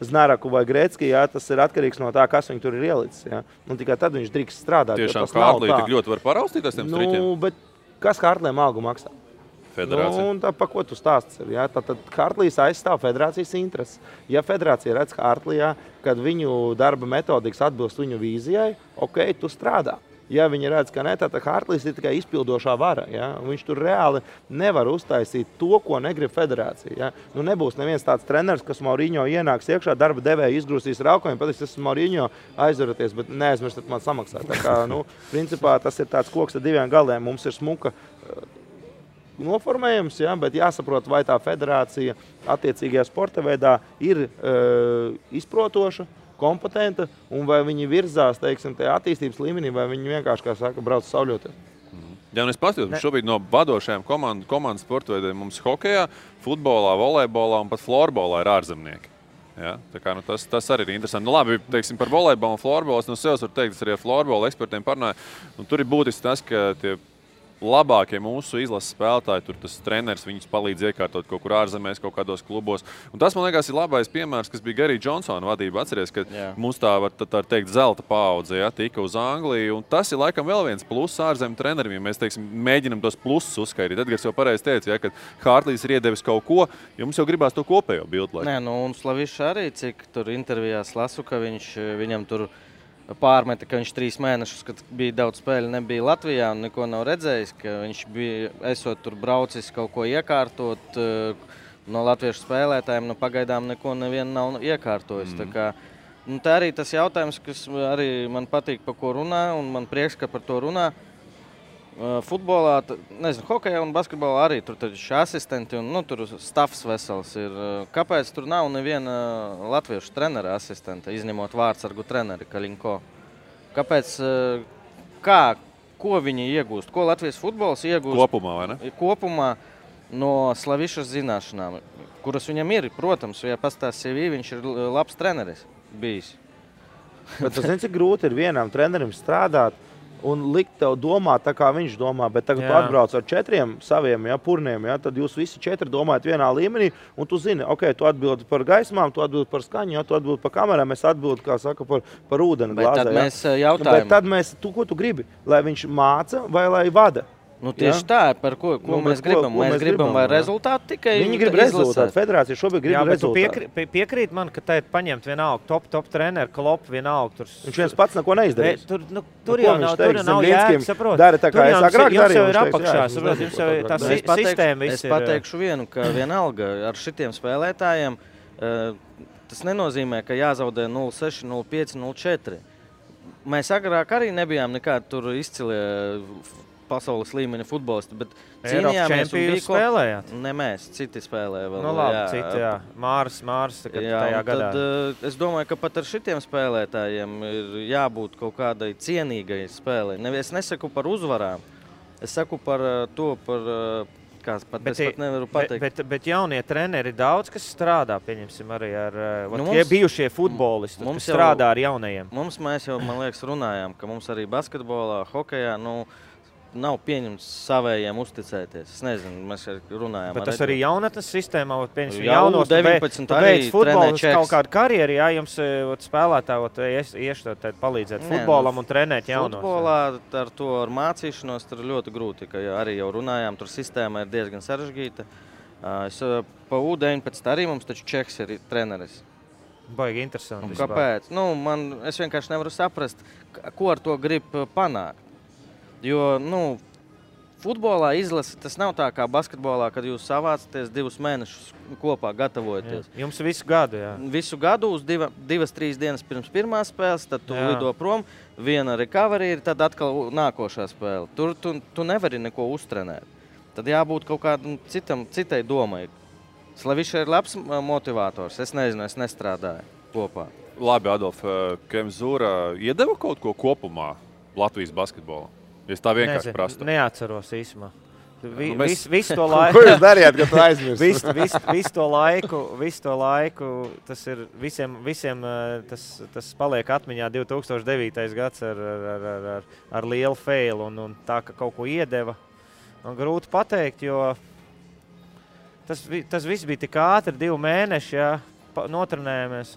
Znaraku vai Grecki, tas ir atkarīgs no tā, kas viņu tur ir ielicis. Un tikai tad viņš drīkst strādāt. Tiešām Hārtlī tik ļoti var paraustīties tiem striķiem? Bet kas Hārtlīm algu maksā? Federācija. Un tā, pa ko tu stāsts ir? Tad Hārtlīs aizstāv federācijas intereses. Ja federācija redz Hārtlijā, kad viņu darba metodikas atbilst viņu vīzijai, tu strādā. Ja viņi redz, ka ne, tad Hārtlīs ir tikai izpildošā vara. Viņš tur reāli nevar uztaisīt to, ko negrib federācija. Nebūs neviens tāds treneris, kas Maurinho ienāks iekšā, darba devēja izgrūstīs raukojumu, pateiks, tas ir Maurinho, aizvaraties, bet neaizmirstat man samaksāt. Tā kā, principā tas ir tāds koks ar diviem galiem. Mums ir smuka noformējums, bet jāsaprot, vai tā federācija attiecīgajā sporta veidā ir izprotoša, kompetenta, un vai viņi virzās, teiksim, tajā attīstības līmenī, vai viņi vienkārši, kā saka, brauc sauļoties. Ja es paskatos, šobrīd no vadošajām komandas sporta veidiem mums hokejā, futbolā, volejbolā un pat florbolā ir ārzemnieki. Tā kā, tas arī ir interesanti. Labi, teiksim, par volejbolu un florbolu es no sevis varu teikt, es arī ar florbola ekspertiem parunāju. Tur ir būtiski tas, ka tie labākie mūsu izlases spēlētāji, tur tas treneris viņus palīdz iekārtot kaut kur ārzemēs, kaut kādos klubos. Un tas, man liekas, ir labais piemērs, kas bija Gary Johnsona vadība. Atceries, ka mums tā var teikt zelta paudze, tika uz Angliju. Un tas ir laikam vēl viens pluss ārzemju treneriem, ja mēs, teiksim, mēģinam tos plusus uzskaitīt. Edgars jau pareizi teica, ka Hārtlīs ir iedevis kaut ko, jo mums jau gribās to kopējo bildu. Nē, un Slavišs arī, cik tur intervijās lasu, ka viņam tur pārmeta, ka viņš 3 mēnešus, kad bija daudz spēļu, nebija Latvijā un neko nav redzējis, ka viņš bija, esot tur braucis kaut ko iekārtot no latviešu spēlētājiem, pagaidām neko nevienu nav iekārtojis. Tā kā, tā arī tas jautājums, kas arī man patīk, par ko runā, un man prieks, ka par to runā. Futbolā, nezinu, hokejā un basketbolā arī tur taču asistenti un tur stafs vesels ir. Kāpēc tur nav neviena latviešu trenera asistenta, izņemot vārdsargu treneri Kaļinko? Kāpēc, ko viņi iegūst? Ko Latvijas futbols iegūst? Kopumā, vai ne? Kopumā no Slavišas zināšanām, kuras viņam ir, protams, ja pastāst CV, viņš ir labs treneris bijis. Bet tas cik grūti ir vienam trenerim strādāt un likt tev domāt tā, kā viņš domā, bet tagad tu atbrauc ar 4 saviem purniem, tad jūs visi 4 domājat vienā līmenī, un tu zini, tu atbildi par gaismām, tu atbildi par skaņu, tu atbildi par kamerām, es atbildi, kā saka, par ūdeni glāzē. Bet tad mēs jautājam. Bet tad ko tu gribi? Lai viņš māca vai lai vada? Tieši tā, par ko mēs gribam. Mēs gribam, vai rezultātu tikai viņi grib rezultātu. Federācija šobrīd grib rezultātu. Piekrīt man, ka tā ir paņemt vienalga top treneru, Klopp vienalga. Viņš viens pats neko neizdarīs. Tur jau nav jēga, saprot. Dara tā, kā es agrāk darīju. Jums jau ir apakšā, saprot, jums jau tā sistēma viss ir. Es pateikšu vienu, ka vienalga ar šitiem spēlētājiem tas nenozīmē, ka jāzaudē 0-6, 0-5, 0-4. Mēs agrāk arī nebijām nekādi tur izcilie pasaules līmeņa futbolisti, bet cīnījāmies un bija spēlējāt? Ne mēs, citi spēlēja vēl. Citi, Māris tajā gadā. Tad es domāju, ka pat ar šitiem spēlētājiem ir jābūt kaut kādai cienīgai spēlei. Es nesaku par uzvarām, es saku par to, es pat nevaru pateikt. Bet jaunie treneri daudz, kas strādā, pieņemsim arī ar tie bijušie futbolisti, kas strādā ar jaunajiem. Mēs jau, man liekas, runājām, ka mums arī basketbolā, hokejā, nav pieņemts savējiem uzticēties. Es nezinu, mēs runājām. Bet tas arī jaunatnes sistēmā, pieņemsim, jaunos, 19 arī futbolis kaut kādu karjeru, jums spēlētāji ieštot palīdzēt futbolam un trenēt jaunos. Futbolā ar to ar mācīšanos tur ļoti grūti, ka arī jau runājām, tur sistēma ir diezgan sarežģīta. Pa U19 arī mums taču Čehs ir treneris. Baigi interesanti. Kāpēc? Es vienkārši nevaru saprast, ko ar to grib panākt. Jo, futbolā izlase, tas nav tā kā basketbolā, kad jūs savācaties 2 mēnešus kopā gatavojaties. Jums visu gadu, Visu gadu uz 2-3 dienas pirms pirmās spēles, tad tu lido prom, viena recovery ir, tad atkal nākošā spēle. Tur tu nevari neko uztrenēt. Tad jābūt kaut kādam citai domai. Slavišs ir labs motivators, es nezinu, es nestrādāju kopā. Labi, Adolf, Kemzūra iedeva kaut ko kopumā Latvijas basketbolā? Es tā vienkārši prastu. Neatceros īsumā. Visu to laiku. Ko jūs darījāt, kad tu aizmirst? Visu to laiku, tas ir visiem tas paliek atmiņā 2009. Gads ar lielu failu un tā, ka kaut ko iedeva. Man grūti pateikt, jo tas viss bija tik ātri, 2 mēneši, notrenējāmies.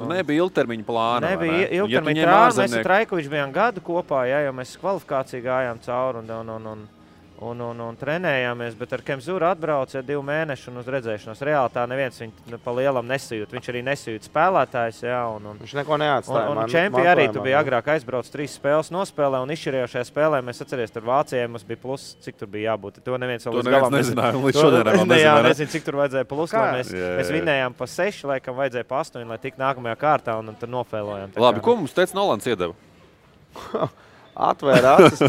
Nebija ilgtermiņa plāna. Nebija ilgtermiņa plāna. Mēs ar Traikoviču bijām gadu kopā, jo mēs kvalifikāciju gājām cauri un trenējāmies, bet ar Kemzūru atbrauca 2 mēneši un uz redzēšanos. Reāli tā neviens viņu pa lielam nesajūt. Viņš arī nesajūt spēlētājs. Viņš neko neatstāja. Un čempi arī tu bija agrāk aizbrauc 3 spēles nospēlē un izšķirējošajā spēlē mēs atceries, tur Vācijai mums bija plus, cik tur bija jābūt. To neviens vēl līdz galam nezināja. Līdz šodien vēl nezināja. Nezinu, cik tur vajadzēja plus. Mēs vinējām pa 6, laikam vajadzēja pa 8, lai tik nākamajā kārtā un tur nofēlojām. Labi, ko mums teica Nolans iedeva? Atvēra acis,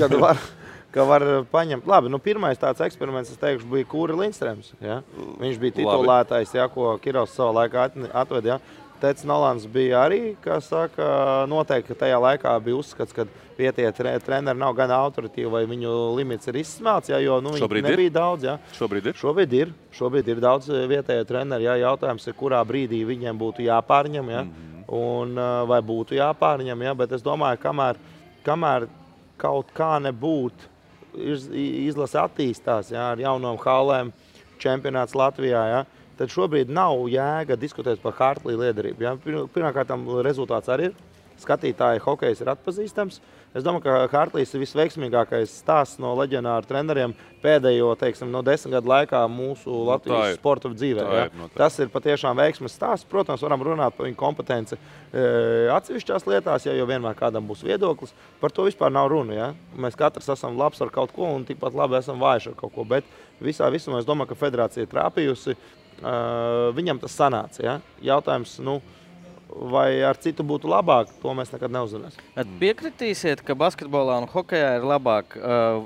ka var paņemt. Labi, pirmais tāds eksperiments, es teikšu, bija Kūri Lindstrēms. Ja? Viņš bija titulētais, ko Kirovs savā laikā atved. Ja? Teica Nolans bija arī, kā saka, noteikti, ka tajā laikā bija uzskats, ka vietie treneri nav gan autoritīvi, vai viņu limits ir izsmelts, ja? Jo viņi nebija daudz. Ja? Šobrīd ir daudz vietējo treneri. Ja? Jautājums ir, kurā brīdī viņiem būtu jāpārņem, ja? Un vai būtu jāpārņem, ja? Bet es domāju, kamēr kaut kā nebūtu izlase attīstās, jā, ar jaunām hallēm, čempionāts Latvijā, jā, tad šobrīd nav jēga diskutēt par Hartley liederību. Jā. Pirmkārtām rezultāts arī ir. Skatītāji hokejs ir atpazīstams. Es domāju, ka Hartleys ir visveiksmīgākais stāsts no leģionāru treneriem pēdējo, teiksim, no 10 gadu laikā mūsu Latvijas sporta dzīvē. Tas ir patiešām veiksmes stāsts. Protams, varam runāt par viņu kompetenci atsevišķās lietās, ja jau vienmēr kādam būs viedoklis. Par to vispār nav runa. Ja? Mēs katrs esam labs ar kaut ko un tikpat labi esam vājši ar kaut ko. Bet visā visumā es domāju, ka federācija ir trāpījusi. Viņam tas sanāca. Ja? Jautājums, vai ar citu būtu labāk, to mēs nekad neuzzināsim. Piekritīsiet, ka basketbolā un hokejā ir labāk,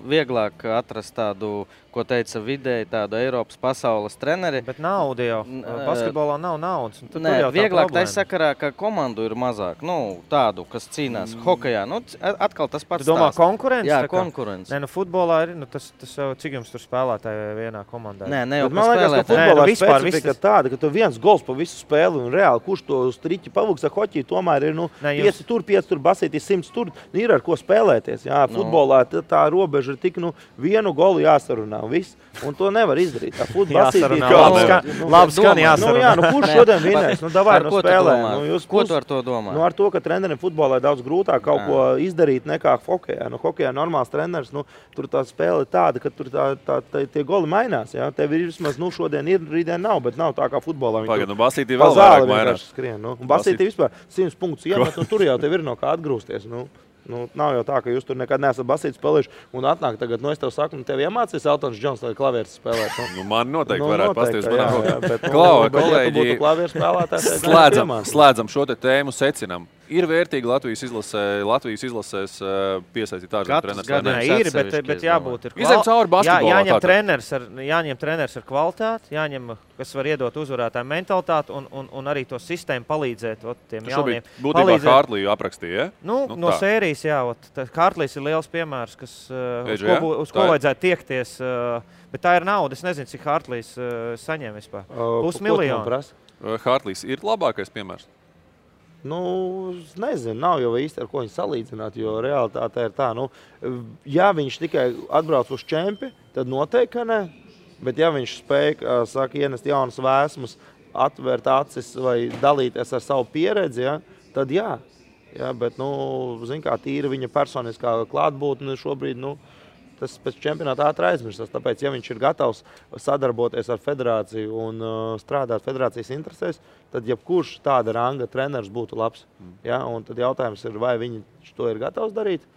vieglāk atrast tādu, ko teica vidēji, tādu Eiropas pasaules treneri. Bet nauda jau. Basketbolā nav naudas. Nē, vieglāk tā sakarā, ka komandu ir mazāk. Tādu, kas cīnās hokejā. Atkal tas pats stāsts. Tu domā konkurence? Jā, konkurence. Nē, futbolā ir, tas jau, cik jums tur spēlētāji vienā komandā? Nē, ne jau man liekas, ka futbolā specifika tāda, ka tu viens gols pa visu spēli un reāli, kurš to striķi pavuks ar hoķiju, tomēr ir 5 tur, basītīs 100 tur, ir ar ko spēlēties. Jā, futbolā tā robeža ir tik, vienu golu jāsarunā. Viss, un to nevar izdarīt. Labi skan jāsarunā. Kurš šodien vinēs? Davai spēlē. Ko tu ar to domā? Ar to, ka trenerim futbolā ir daudz grūtāk kaut ko izdarīt nekā hokejā. Hokejā normāls treneris, tur tā spēle ir tāda, ka tur tie goli mainās. Jā. Tev ir vismaz, šodien ir, rītdien nav, bet nav tā kā futbolā. Basītī vēl vairāk mainās. Basītī vispār 100 punktus iemet, un tur jau tev ir no kā atgrūsties. Nav jau tā, ka jūs tur nekad neesat basīti spēlējuši un atnāk tagad, es tev saku, tev iemācīs Eltons Džons, lai klavieris spēlēt. Man noteikti varētu pastīties manā rokā. Kolēģi, slēdzam šo te tēmu, secinam. Ir vērtīgi Latvijas izlasēs piesaistīt ārzemju treneris. Ir, bet jābūt ir izem cauri basketbolā. Jāņem treneris ar kvalitāti, jāņem, kas var iedot uzvarētāju mentalitāti un arī to sistēmu palīdzēt tiem jauniem. Būtībā Hartleyu aprakstīja, ja? No sērijas, jā. Hartlejs ir liels piemērs, uz ko vajadzētu tiekties. Bet tā ir nauda. Es nezinu, cik Hartlejs saņem vispār. $500,000. Hartlejs ir labākais piemērs? Nezinu, nav jau īsti ar ko viņu salīdzināt, jo realitāte ir tā, ja viņš tikai atbrauc uz čempi, tad noteikti, ka ne, bet ja viņš spēja, ienest jaunas vēsmas, atvērt acis vai dalīties ar savu pieredzi, ja, tad jā. Ja, bet, zin kā, tīra viņa personiskā klātbūtne šobrīd, tas pēc čempionāta ātri aizmirstas. Tāpēc, ja viņš ir gatavs sadarboties ar federāciju un strādāt federācijas interesēs, tad jebkurš tāda ranga treneris būtu labs. Ja? Un tad jautājums ir, vai viņš to ir gatavs darīt,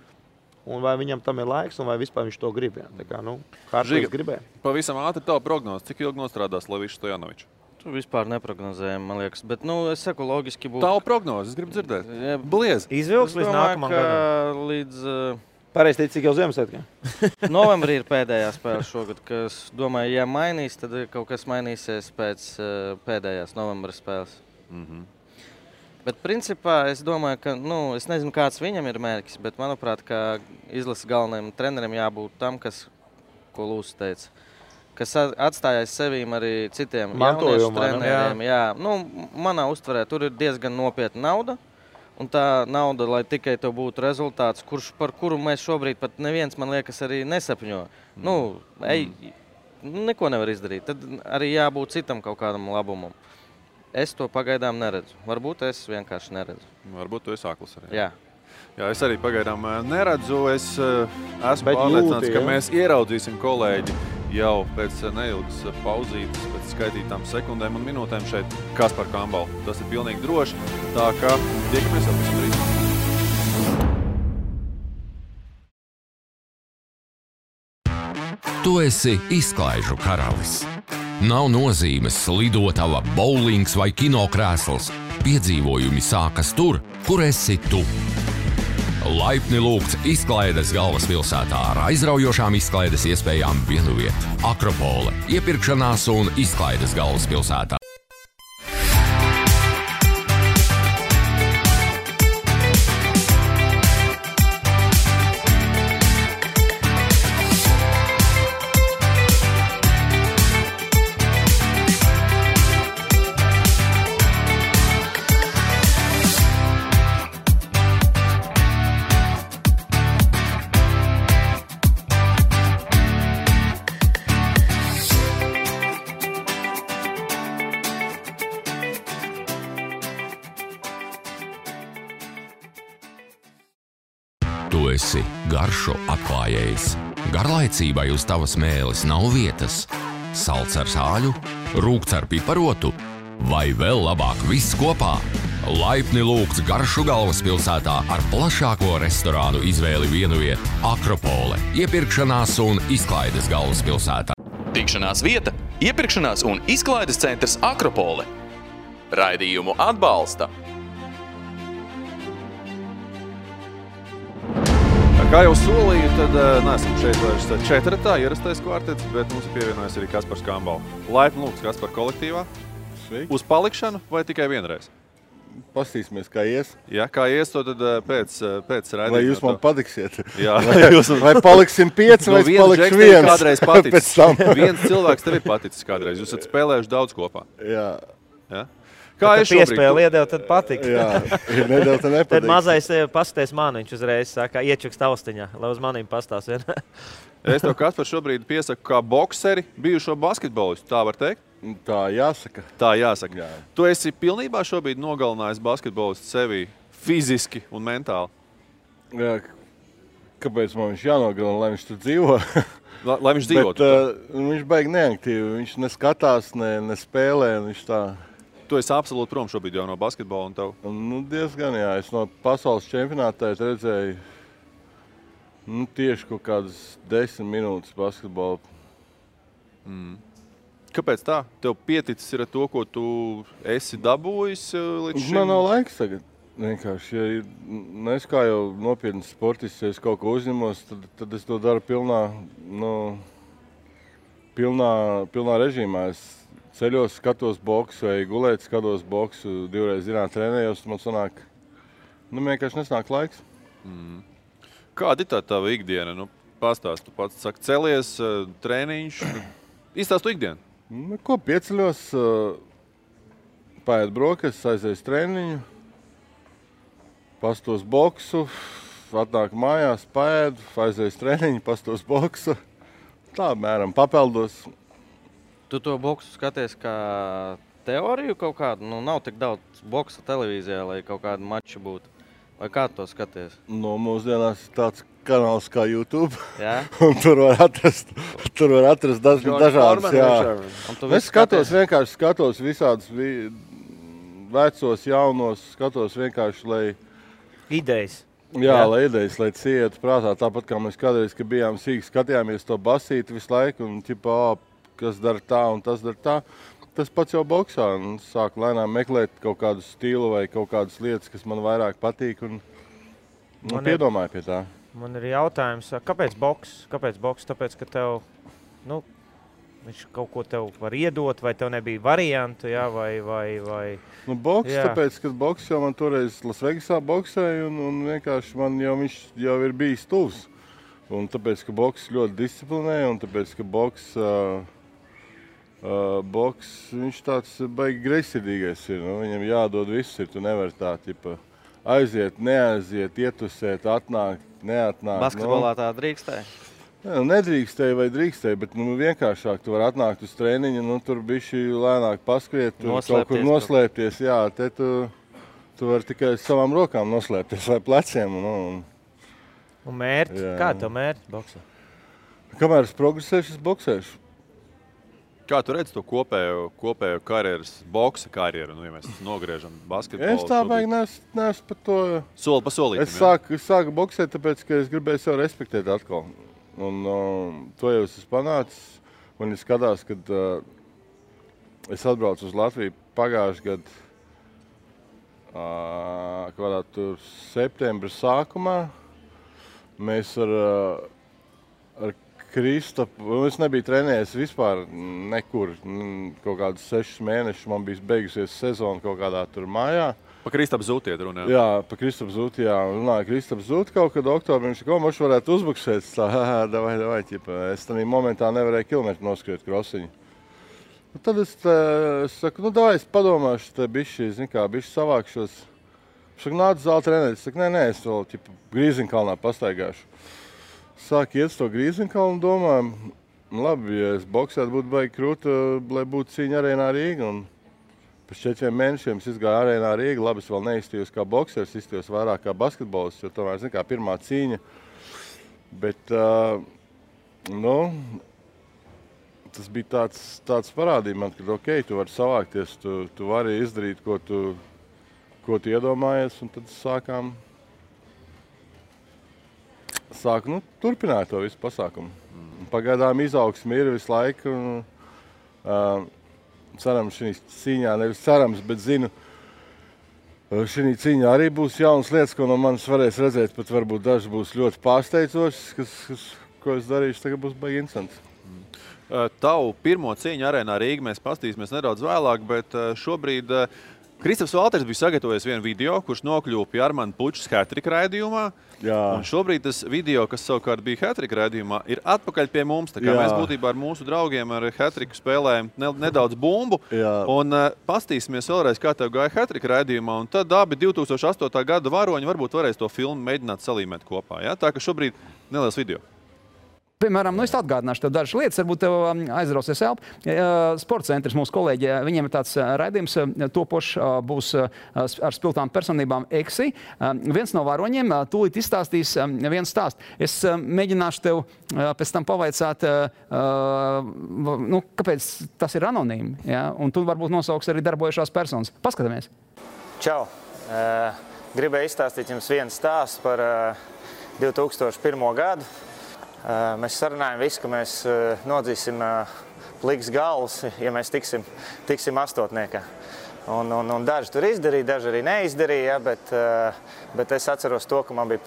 un vai viņam tam ir laiks, un vai vispār viņš to grib. Ja? Tā kā, Hartlejs gribēja. Pavisam ātri tavu prognozi. Cik ilgi nostrādās Levišs Stojanovičs? Tu vispār neprognozējam, man liekas. Bet, es saku, logiski būtu. Tavu prognozi, es gribu dzirdēt. Bliez. Izvilks līdz nākamam gadam. Līdz... Pareizi teici, cik jau Ziemassvētkiem. Novembrī ir pēdējā spēle šogad, kas, domāju, ja mainīs, tad kaut kas mainīsies pēc pēdējās novembra spēles. Bet principā es domāju, ka, es nezinu, kāds viņam ir mērķis, bet manuprāt, ka izlases galvenajam trenerim jābūt tam, ko Lūsis teica, kas atstājās sevīm arī citiem jauniešu treneriem. Jā. Manā uztverē tur ir diezgan nopietna nauda. Un tā nauda, lai tikai tev būtu rezultāts, par kuru mēs šobrīd pat neviens, man liekas, arī nesapņo. Neko nevar izdarīt. Tad arī jābūt citam kaut kādam labumam. Es to pagaidām neredzu. Varbūt es vienkārši neredzu. Varbūt tu esi akls arī. Jā. Jā, es arī pagaidām neredzu. Es esmu pārliecināts, ka mēs ieraudzīsim kolēģi jau pēc neilgas pauzītes, pēc skaitītām sekundēm un minūtēm šeit Kaspar Kambalu. Tas ir pilnīgi droši, tā kā tiekamies jau pavisam drīz. Tu esi izklaižu karalis. Nav nozīmes lidotava, bowlings vai kinokrēsls. Piedzīvojumi sākas tur, kur esi tu. Laipni lūgts izklaides galvaspilsētā ar aizraujošām izklaides iespējām vienu vietu. Akropole, iepirkšanās un izklaides galvaspilsētā. Tu esi garšo atklājējs. Garlaicībai uz tavas mēles nav vietas. Salds ar sāļu, rūgts ar piparotu vai vēl labāk viss kopā. Laipni lūgts Garšu galvaspilsētā ar plašāko restorānu izvēli vienvieta Akropole, iepirkšanās un izklaides galvaspilsētā. Tikšanās vieta, iepirkšanās un izklaides centrs Akropole. Raidījumu atbalsta. Kā jau solīju, tad neesam šeit vairs četratā, ierastais kvartets, bet mums ir pievienojies arī Kaspars Kambals. Laipni lūgts Kaspar kolektīvā. Sveiki. Uz palikšanu vai tikai vienreiz? Pastīsimies, kā ies. Jā, kā ies, to tad pēc raidījuma. Vai jūs man patiksiet? Jā. Vai paliksim 5 vai palikšu 1? Kādreiz paticis. Viens cilvēks tev ir paticis kādreiz. Jūs esat spēlējuši daudz kopā. Jā. Ja? Kā es šobrīd? Piespēli iedeva, tad patika. Jā, nedēļ te nepatīk. Tad mazais pasties man, viņš uzreiz saka, iečuks taustiņā, lai uz manīm pastās vien. Es tev, Kaspar, šobrīd piesaku kā bokseri bijušo basketbolistu, tā var teikt? Tā jāsaka. Tā jāsaka. Jā. Tu esi pilnībā šobrīd nogalinājis basketbolistu sevi fiziski un mentāli? Jā, kāpēc man viņš jānogalina, lai viņš tur dzīvo? Lai viņš dzīvotu? Bet viņš baigi neaktīvi, viņš neskatās, ne spēlē, viņš tā... Tu esi absolūti prom šobrīd jau no basketbola un tev? Nu, diezgan, jā. Es no pasaules čempionātā redzēju tieši kaut kādas 10 minūtes basketbolu. Kāpēc tā? Tev pieticis ir to, ko tu esi dabūjis līdz šim? Man nav laiks tagad. Vienkārši, ja es kā jau nopietni sportists, ja es kaut ko uzņemos, tad es to daru pilnā režīmā. Es ceļos, skatos boksu vai gulēt, skatos boksu, 2 reizes dienā trenējos, man sanāk, vienkārši nesnāk laiks. Kāda ir tā tava ikdiena? Pastāst, tu pats saki, celies, trēniņš, izstāst tu ikdienu? Ko pieceļos, paēd brokastis, aizies trēniņu, pastos boksu, atnāk mājās, paēdu, aizies trēniņu, pastos boksu, tā mēram papeldos. Tu to boksu skaties kā teoriju kaut kādu? Nav tik daudz boksa televīzijā, lai kaut kādu maču būtu. Vai kā tu to skaties? Mūsdienās ir tāds kanāls kā YouTube. Jā? Un tur var atrast dažādas. Es vienkārši skatos visādus vecos, jaunos, skatos vienkārši, lai... Idejas. Jā, lai idejas, lai cietu prātā. Tāpat kā mēs kādreiz, kad bijām sīki, skatījāmies to basīti visu laiku un kas dara tā un tas dara tā. Tas pats jau boksā. Sāku lēnām meklēt kaut kādu stilu vai kaut kādas lietas, kas man vairāk patīk un piedomāju pie tā. Man ir jautājums, kāpēc boks? Tāpēc, ka tev, viņš kaut ko tev var iedot, vai tev nebija variantu, jā, vai... Boks, tāpēc, ka boks jau man toreiz Lasvegasā boksēja un vienkārši viņš jau ir bijis tuvs. Un tāpēc, ka boks ļoti disciplinē un tāpēc, ka boks viņš tāds baigi greizsirdīgais ir. Viņam jādod viss ir, tu nevari tā, aiziet, neaiziet, ietusēt, atnākt, neatnākt. Basketbolā tā drīkstēja? Nedrīkstēja vai drīkstēja, bet vienkāršāk tu vari atnākt uz treniņu, tur bišķi lēnāk paskriet, kaut kur noslēpties. Jā, te tu vari tikai savām rokām noslēpties vai pleciem. Un mērķi? Kāda tev mērķi boksā? Kamēr es progresēšu, es boksēšu. Kā tu redzi to kopējo karjeras, boksa karjeru, ja mēs nogriežam basketbolu? Es tā baigi neesmu par to... Soli pa solītim, Es sāku boksēt, tāpēc, ka es gribēju sev respektēt atkal. Un to jau es esmu panācis. Un es skatās, kad es atbraucu uz Latviju pagājuši gadu, kādā tur septembra sākumā. Mēs ar Kristapu, es nebiju trenējies vispār nekur, kaut kādus 6 mēnešus, man bija beigusies sezona kaut kādā tur mājā. Pa Kristapu Zūti iet runā? Jā, pa Kristapu Zūti, jā. Runāju Kristapu Zūti kaut kad oktobrī, viņš ko maču varētu uzbuksēt, davai, es tādā momentā nevarēju kilometru noskriet krosiņu. Tad es saku, davai, es padomāšu, te bišķi savākšos. Es saku, nāc zāli trenēt, es saku, nē, es vēl Grīziņkalnā pastaigāšu. Sāk iet uz to Grīziņkalnu un domāju, labi, ja es boksētu būtu baigi krūta, lai būtu cīņa arēnā Rīga. Pēc 4 mēnešiem es izgāju arēnā Rīga. Labi, es vēl neizstījos kā boksers, izstījos vairāk kā basketbolists, jo tomēr, zin kā, pirmā cīņa. Bet, tas bija tāds parādīja man, ka, ok, tu vari savākties, tu vari izdarīt, ko tu iedomājies, un tad sāku turpināt to visu pasākumu. Pagaidām izaugsme ir visu laiku, un cerams šī cīņā, nevis cerams, bet zinu, šī cīņā arī būs jaunas lietas, ko no manis varēs redzēt, pat varbūt daži būs ļoti pārsteidzošas, ko es darīšu, tagad būs baigi interesants. Tavu pirmo cīņu arēnā Rīga mēs pastīsimies nedaudz vēlāk, bet šobrīd Kristofs Valters bija sagatavojis vienu video, kurš nokļuva pie Armanda Pučas hat-trick raidījumā. Jā. Un šobrīd tas video, kas savukārt bija hat-trick raidījumā, ir atpakaļ pie mums. Tā kā mēs būtībā ar mūsu draugiem ar hat-tricku spēlējam nedaudz bumbu. Jā. Un pastīsimies vēlreiz, kā tev gāja hat-trick raidījumā. Un tad abi 2008. gada varoņi varbūt varēs to filmu mēģināt salīmēt kopā. Ja? Tā ka šobrīd neliels video. Piemēram, es atgādināšu tev dažas lietas, varbūt tev aizrausies elpa. Sporta centrs mūsu kolēģi, viņiem ir tāds raidījums topošs, būs ar spilgtām personībām EXI. Viens no varoņiem tūlīt izstāstīs vienu stāstu. Es mēģināšu tev pēc tam pavaicāt, kāpēc tas ir anonīmi, ja? Un tu varbūt nosauks arī darbojušās personas. Paskatāmies. Čau! Gribēju izstāstīt jums vienu stāstu par 2001. gadu. Mēs sarunājam visu, ka mēs nodzīsim pliks galvas, ja mēs tiksim astotniekā. Un daži tur izdarīja, daži arī neizdarīja, bet es atceros to, ka man bija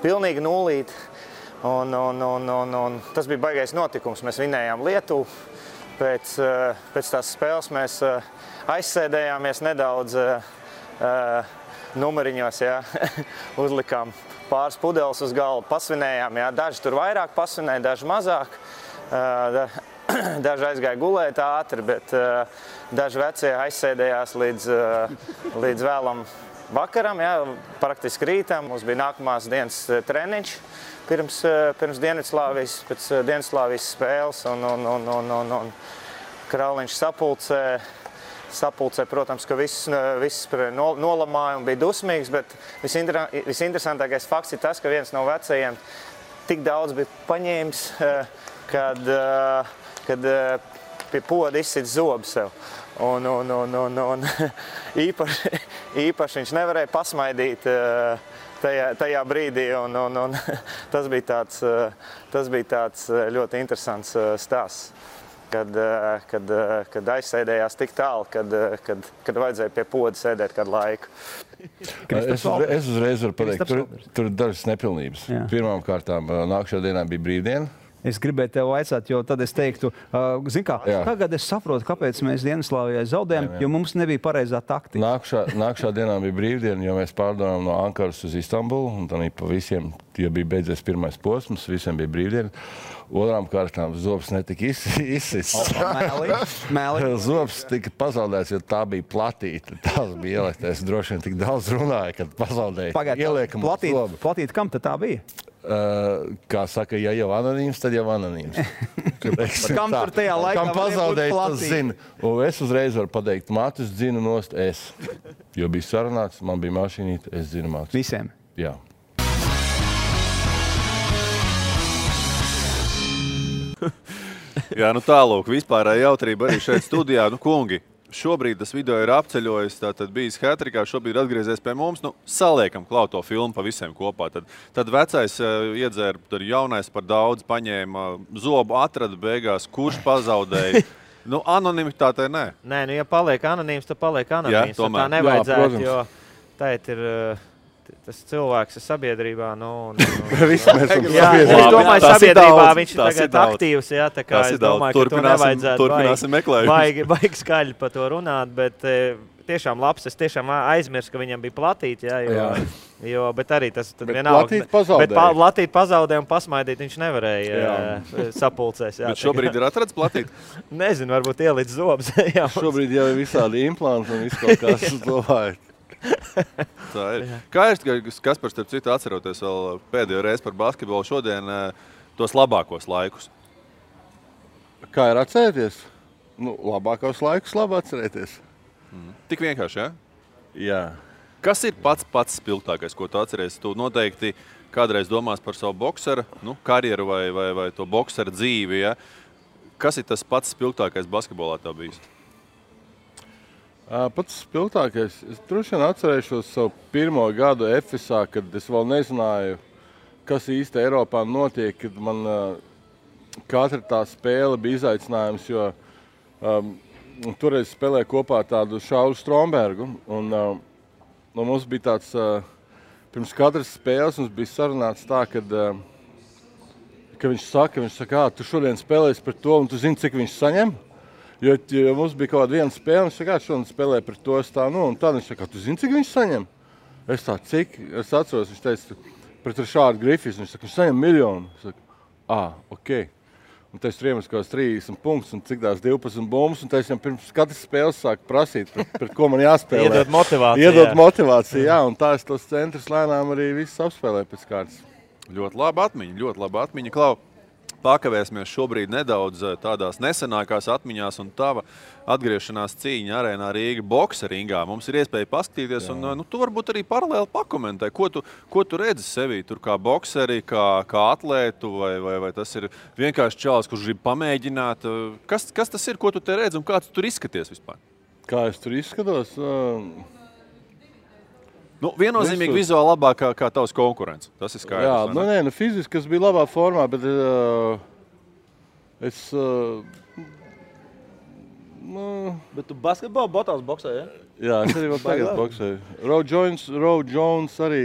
pilnīgi nulīti. Un tas bija baigais notikums. Mēs vinējām Lietuvu. Pēc tās spēles mēs aizsēdējāmies nedaudz numuriņos, ja, uzlikām pāris pudeles uz galvu, pasvinējām, ja, daži tur vairāk pasvinēja, daži mazāk, daži aizgāja gulēt ātri, bet daži vecie aizsēdējās līdz vēlam vakaram, ja, praktiski rītam. Mums bija nākamās dienas treniņš pirms Dienvidslāvijas, pēc Dienvidslāvijas spēles, un Krauliņš sapulcē, protams, ka viss nolamāja un bija dusmīgs, bet visinteresantākais fakts ir tas, ka viens no vecajiem tik daudz bija paņēmis, kad pie poda izsit zobu sev. Un īpaši viņš nevarēja pasmaidīt tajā brīdī, un tas bija tāds ļoti interesants stāsts. Kad aizsēdējās tik tālu, kad vajadzēja pie poda sēdēt kādu laiku. Es uzreiz varu pateikt, tur ir dažas nepilnības. Pirmām kārtām nākamajā dienā bija brīvdiena. Es gribēju tev vaicāt, jo tad es teiktu, zini kā, tagad es saprotu, kāpēc mēs Dienvidslāvijai zaudējām, jo mums nebija pareizā taktika. Nākamajā dienā bija brīvdiena, jo mēs pārdevām no Ankaras uz Istanbulu, un tad pa visiem, jo bija beidzies pirmais posms, visiem bija brīvdiena. Otrām kārtām zobs netika izsists. Zobs tika pazaudēts, jo tā bija platīta. Tas bija ieliektais. Droši vien tik daudz runāja, kad pazaudēja. Ieliekam zobu. Platīta, kam tad tā bija? Kā saka, ja jau anonīms, tad jau anonīms. Kam tur tajā laikā kam pazaudēja, tas zina. Un es uzreiz varu pateikt, Matus dzinu nost es. Jo bija sarunāts, man bija mašīnīte, es dzinu Matus. Visiem? Jā. Jā, tālūk, vispārēja jautrība arī šeit studijā. Kungi, šobrīd tas video ir apceļojis, tātad bijis hat-trickā, šobrīd atgriezies pie mums. Saliekam klāt to filmu pa visiem kopā. Tad vecais iedzēra, tad jaunais par daudz paņēma, zobu atrada beigās, kurš pazaudēja. Anonimitātei nē. Nē, ja paliek anonīms, tad paliek anonīms. Jā, tomēr. Tā nevajadzētu, jo tēt ir tas cilvēks ir sabiedrībā. Visi mēs esam sabiedrībā. Es domāju, sabiedrībā viņš ir tagad aktīvs. Jā, tā kā es domāju, ka to nevajadzētu baigi skaļi par to runāt, bet tiešām labs. Es tiešām aizmirsu, ka viņam bija platīti. Bet arī tas vienalga. Bet platīt pazaudēja un pasmaidīt viņš nevarēja sapulcēs. Bet šobrīd ir atrads platīt? Nezinu, varbūt ielic zobs. Šobrīd jau ir visādi implanti un viss kaut kas domājot. Tā ir. Kā ir, Kaspars, starp citu, atceroties vēl pēdējo reizi par basketbolu šodien tos labākos laikus? Kā ir atcerēties? Labākos laikus labi atcerēties. Tik vienkārši, ja? Jā. Kas ir pats spilgtākais, ko tu atceries? Tu noteikti kādreiz domās par savu boksera karjeru vai to boksera dzīvi, ja? Kas ir tas pats spilgtākais basketbolā tev bijis? Pats spilgtākais. Es droši vien atcerēšos savu pirmo gadu Efesā, kad es vēl nezināju, kas īsti Eiropā notiek, kad man katra tā spēle bija izaicinājums, jo toreiz spēlēja kopā tādu Šauru Strombergu, un mums bija tāds, pirms katras spēles mums bija sarunāts tā, kad viņš saka, tu šodien spēlēsi par to, un tu zini, cik viņš saņem? Jo mums bija kaut kāda viena spēle, viņš saka, šodien spēlē par to, un tad viņš saka, tu zini, cik viņš saņem? Es tā, cik? Es atceros, viņš teica, pret Rišārdu Grifis, viņš saka, viņš saņem 1 miljonu. Es saku, ok. Un tad es tur iemetu kaut kāds 30 punktus un cik tās 12 bumbas, un tad es viņam pirms katras spēles sāku prasīt, pret ko man jāspēlē. Iedod motivāciju, jā, un tā es tos centrus lēnām arī visus apspēlēju pēc kārtas. Ļoti laba atmiņa. Klau, pakavēsimies šobrīd nedaudz tādās nesenākās atmiņās un tava atgriešanās cīņa arēnā Rīga boksa ringā. Mums ir iespēja paskatīties un tu varbūt arī paralēli pakomentē, ko tu redzi sevī tur kā bokseri, kā atlētu vai tas ir vienkārši čalis, kurš grib pamēģināt. Kas tas ir, ko tu te redzi un kā tu tur izskaties vispār? Kā es tur izskatos? Viennozīmīgi vizuāli labāk kā tavs konkurents. Tas ir skaidrs. Jā, fiziski es biju labā formā, bet Bet tu basketbolu botās boksē, ja? Jā, es arī vēl tagad boksēju. Roy Jones arī,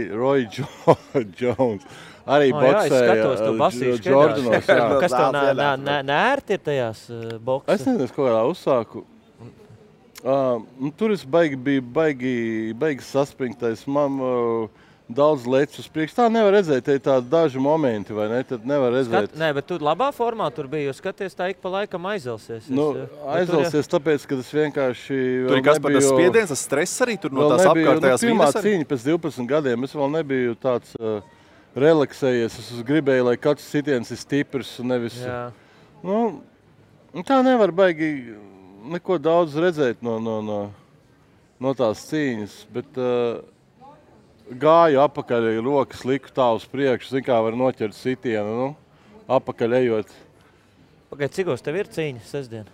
arī boksēja. Jā, es skatos, tu basīši Jordanos. Kas tev nērti ir tajās boksē? Es nezinu, ko kādā uzsāku. Tur es biju baigi saspringtais. Man daudz lecis uz priekšu. Tā nevar redzēt, te ir tādi daži momenti, vai ne? Tad nevar redzēt. Nē, bet tu labā formā tur biji, jo skaties tā ik pa laikam aizelsies. Aizelsies tāpēc, ka es vienkārši tur ir kas par tas spiediens, tas stress arī tur no tās apkārtējās pirmā cīņa pēc 12 gadiem. Es vēl nebiju tāds relaksējies. Es gribēju, lai katrs sitiens ir stiprs un nevis... Tā nevar baigi neko daudz redzēt no tās cīņas, bet... Gāju apakaļ, rokas liku tā uz priekšu, zin kā var noķert sitienu, apakaļ ejot. Pagaid, cikos tev ir cīņa sestdien?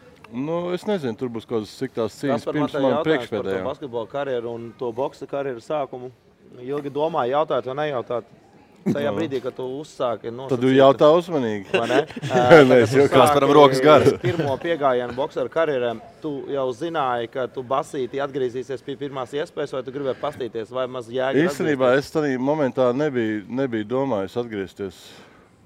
Es nezinu, tur būs kaut kādas cik tās cīņas pirms man priekšpēdējā. Par to basketbola karjeru un to boksa karjeru sākumu. Ilgi domāju, jautāt vai nejautāt. Tajā brīdī, kad tu uzsāki nosacīt... Tad tu jautā uzmanīgi. Vai ne? Mēs varam rokas garas. Pirmo piegājienu bokseru karjerēm, tu jau zināji, ka tu basīti atgriezīsies pie pirmās iespējas, vai tu gribēji pastīties, vai maz jēga īstenībā es tādā momentā nebiju domājis atgriezties.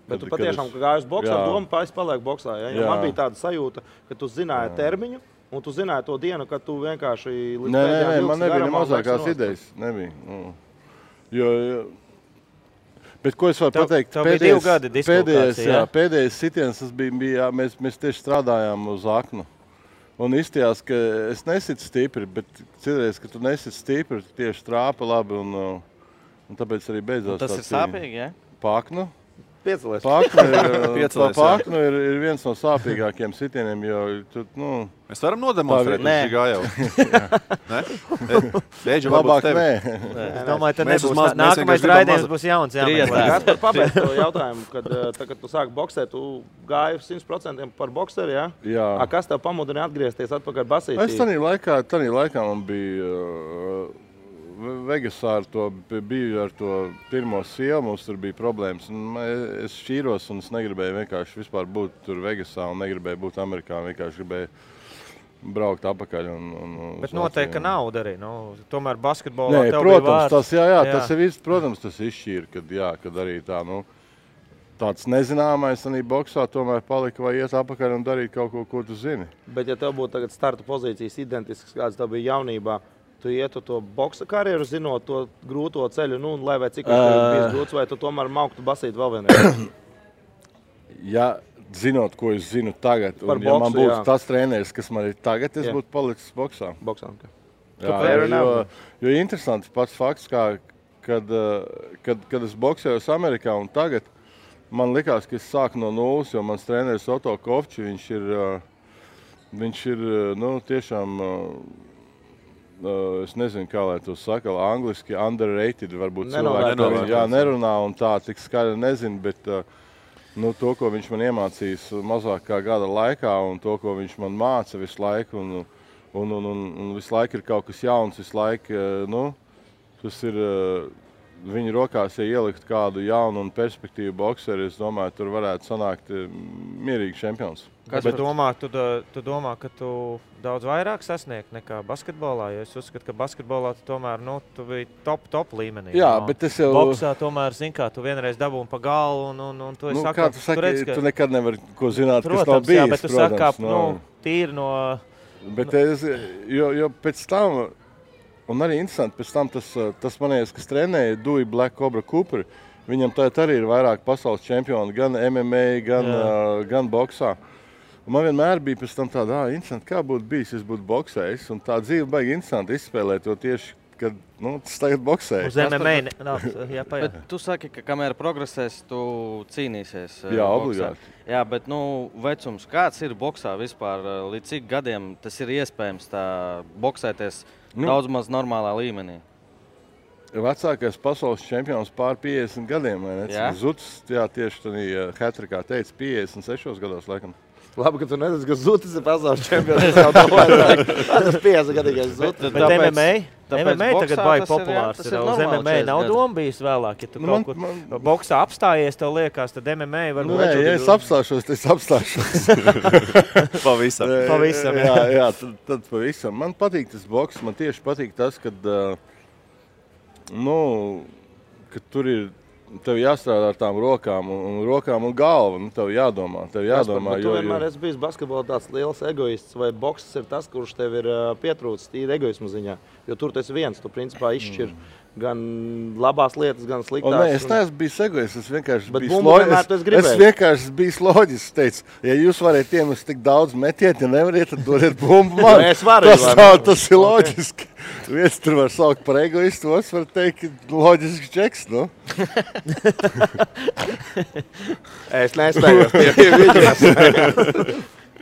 Bet tu patiešām gāji uz boksu ar domu, es palieku boksā. Ja? Man bija tāda sajūta, ka tu zināji termiņu, un tu zināji to dienu, kad tu vienkārši... Nē, man nebija mazākās idejas. Nebija. Bet ko es varu pateikt? Pēdējais sitiens bija, mēs tieši strādājām uz aknu. Un izstījās, ka es nesitu stipri, bet citreiz, ka tu nesitu stipri, tu tieši trāpa labi un tāpēc arī beidzās tā cīņa. Tas ir sāpīgi, ja? Paknu? Piecelies. Paknu ir viens no sāpīgākiem sitieniem, jo tu, Mēs varam nodemonstrēt, viņš gājau. Beidži labāk nē. Es domāju, tad nebūs. Nākamais raidījums būs jauns. Gaspar, pabeidz to jautājumu, kad tu sāki boksēt, tu gāji 100% par bokseri, ja? Jā. Kas tev pamudina atgriezties atpakaļ basītī? Es tanī laikā man bija Vegasā biju ar to pirmo sievu, mums tur bija problēmas. Es šķīros un es negribēju vienkārši vispār būt tur Vegasā un negribēju būt Amerikā, vienkārši gribēju braukt apakaļ. Bet noteikti, ka nauda arī. Tomēr basketbolā tev bija vārds. Tas ir viss, protams, tas izšķīra, kad arī tā, tāds nezināmais arī boksā tomēr palika vai iet apakaļ un darīt kaut ko tu zini. Bet ja tev būtu tagad starta pozīcijas identisks, kāds tev bija jaunībā, tu ietu to boksa karjeru, zinot to grūto ceļu, lai vai cik tev bijis grūts, vai tu tomēr mauktu basīt vēl vienreiz? Ja zinot, ko es zinu tagad, un ja man būtu tas treneris, kas man ir tagad, es būtu palicis boksā. Boksā, jo interesants pats fakts, kad es boksējos Amerikā un tagad, man likās, ka es sāku no nulles, jo mans treneris Otto Kovči, viņš ir tiešām es nezinu, kā lai to saka, angliski underrated, varbūt Nenovērtēts. cilvēki nerunā un tā tik skaļi nezinu, bet to, ko viņš man iemācījis mazāk kā gada laikā un to, ko viņš man māca visu laiku un visu laiku ir kaut kas jauns, visu laiku, tas ir viņa rokās, ja ielikt kādu jaunu un perspektīvu bokseri, es domāju, tur varētu sanākt mierīgi čempions. Kas tu domā, tu domā, ka tu daudz vairāk sasniegt nekā basketbolā, jo es uzskatu, ka basketbolā tu tomēr, tu biji top līmenī. Jā, bet es jau... Boksā tomēr, tu vienreiz dabūni pa galvu un tu esi kā tu saki, tu nekad nevari ko zināt, kas nav bijis, jā, bet tu saki, tīri no... Bet jo pēc tam... Un arī interesanti, pēc tam tas manies, kas trenēja Dewey Black Cobra Cooper, viņam tagad arī ir vairāk pasaules čempioni, gan MMA, gan boksā. Un man vienmēr bija pēc tam tāda, interesanti, kā būtu bijis, es būtu boksējis, un tā dzīve baigi interesanti izspēlēt to tieši, kad tas tagad boksēja. Uz MMA, bet tu saki, ka kamēr progresēs, tu cīnīsies. Jā, obligāti. Jā, bet vecums, kāds ir boksā vispār, līdz cik gadiem tas ir iespējams tā boksēties daudz maz normālā līmenī? Vecākais pasaules čempions pār 50 gadiem, vai ne? Jā? Zutis, jā, tieši tādā hat-trickā teica 56 gados, laikam. Labi, ka tu nezini, ka Zutis ir pasaules čempions. Es jau domāju, tas 50 gadīgais Zutis. Bet MMA tagad baigi populārs ir. Uz MMA nav doma bijis vēlāk. Ja tu kaut kur boksā apstājies, tev liekas, tad MMA varbūt... Nē, ja es apstāšos, tad es apstāšos. Pavisam. Jā, tad pavisam. Man patīk tas boks, man tieši patīk tas, kad tur ir... Tev jāstrādā ar tām rokām un galvu, tev jādomā. Tu vienmēr esi bijis basketbolā tāds liels egoists, vai bokses ir tas, kurš tev ir pietrūcis tīri egoismu ziņā? Jo tur tu esi viens, tu principā izšķir gan labās lietas, gan sliktās. Nē, es neesmu bijis egoists, es vienkārši biju loģisks. Teicu, ja jūs variet iemest tik daudz metiet, ja nevariet, tad dodiet bumbu man. Tas ir loģiski. Viens tur var saukt par egoistu, otrs var teikt, loģisks čeks, Es nespējos tie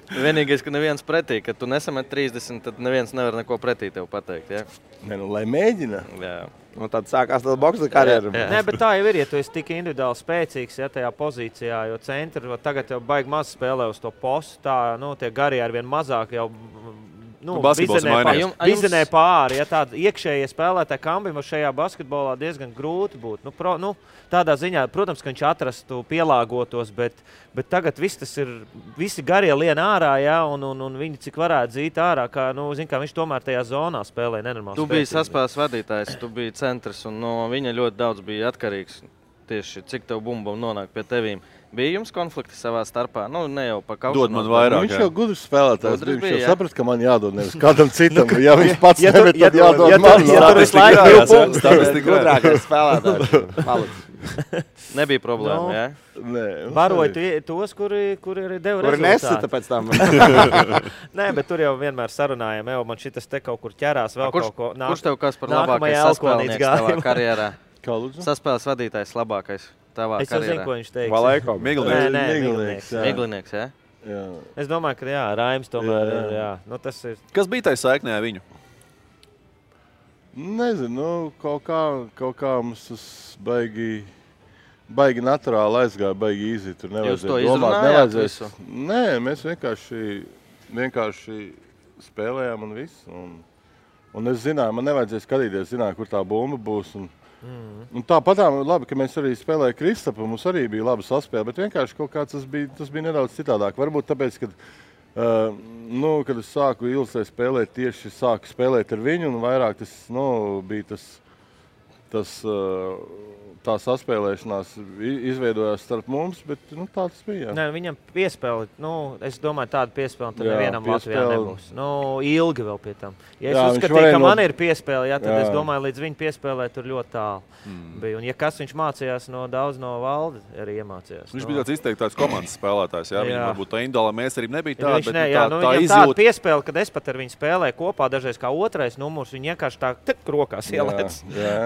Vienīgais, ka neviens pretī, kad tu nesamet 30, tad neviens nevar neko pretī tev pateikt, ja? Lai mēģina. Jā. Tad sākās tāda boksa karjeru. Nē, bet tā jau ir, ja tu esi tik individuāli spēcīgs, tajā pozīcijā, jo centri tagad jau baigi maz spēlē uz to postu, tie garie arvien mazāk jau vizenē pāri, ja tāda iekšējie spēlētāji kambim šajā basketbolā diezgan grūti būtu. Tādā ziņā, protams, ka viņš atrastu pielāgotos, bet tagad visi garie lien ārā, ja, un viņi cik varētu dzīt ārā, kā viņš tomēr tajā zonā spēlē nenormāli. Tu biji saspēles vadītājs, tu biji centrs, un no viņa ļoti daudz bija atkarīgs tieši, cik tev bumba nonāk pie tevīm. Bija jums konflikti savā starpā? Ne jau pa kaušanos. Dod man vairāk, viņš jau gudrs spēlētājs. Viņš jau saprast, ka man jādod nevis kādam citam. Ja viņš pats nevar, tad jādod man. Ja tur visu laiku 2 punktus, gudrākais spēlētājs. Nebija problēma, jā? Baroja tos, kuri arī deva rezultātu. Kuri nesita pēc tam. Nē, bet tur jau vienmēr sarunājam, man šitas te kaut kur ķerās vēl kaut ko. Kurš tev kas par labākais saspēlnieks tavā karjerā? Saspēles vadītājs labākais tavā karjerā? Es jau zinu, ko viņš teiks. Valēko. Miglinieks, jā? Es domāju, ka Raims tomēr ir, jā. Tas ir... Kas bija tai saiknē ar viņu? Nezinu, kaut kā mums tas baigi naturāli aizgāja, baigi īzi. Tur jūs to izrunājāt visu? Nē, mēs vienkārši spēlējām un viss. Un es zināju, man nevajadzēja skatīties, zināju, kur tā bumba būs. Un tāpatām labi, ka mēs arī spēlējām Kristapu, mums arī bija laba saspēle, bet vienkārši kaut kā tas bija nedaudz citādāk. Varbūt tāpēc, kad es sāku Ilsē spēlēt, tieši sāku spēlēt ar viņu, un vairāk tas bija tā saspēlēšanās izveidojās starp mums, bet tā tas bija. Nē, viņam piespēli, es domāju, tāda piespēli tad nevienam Latvijā nebūs. Ilgi vēl pie tam. Ja es uzskatīju, ka man ir piespēle, tad es domāju, līdz viņa piespēlē tur ļoti tālu bija. Un ja kas viņš mācījās daudz no Valdi, arī iemācījās. Viņš bija tāds izteikts komandas spēlētājs, jā? Viņam varbūt tā individuālā mēsarība nebija tāda, bet tā izjūta. Tāda piespēle, kad es pat ar viņu spēlēju kopā, dažreiz kā otrais numurs, viņi vienkārši tā rokās ielēc.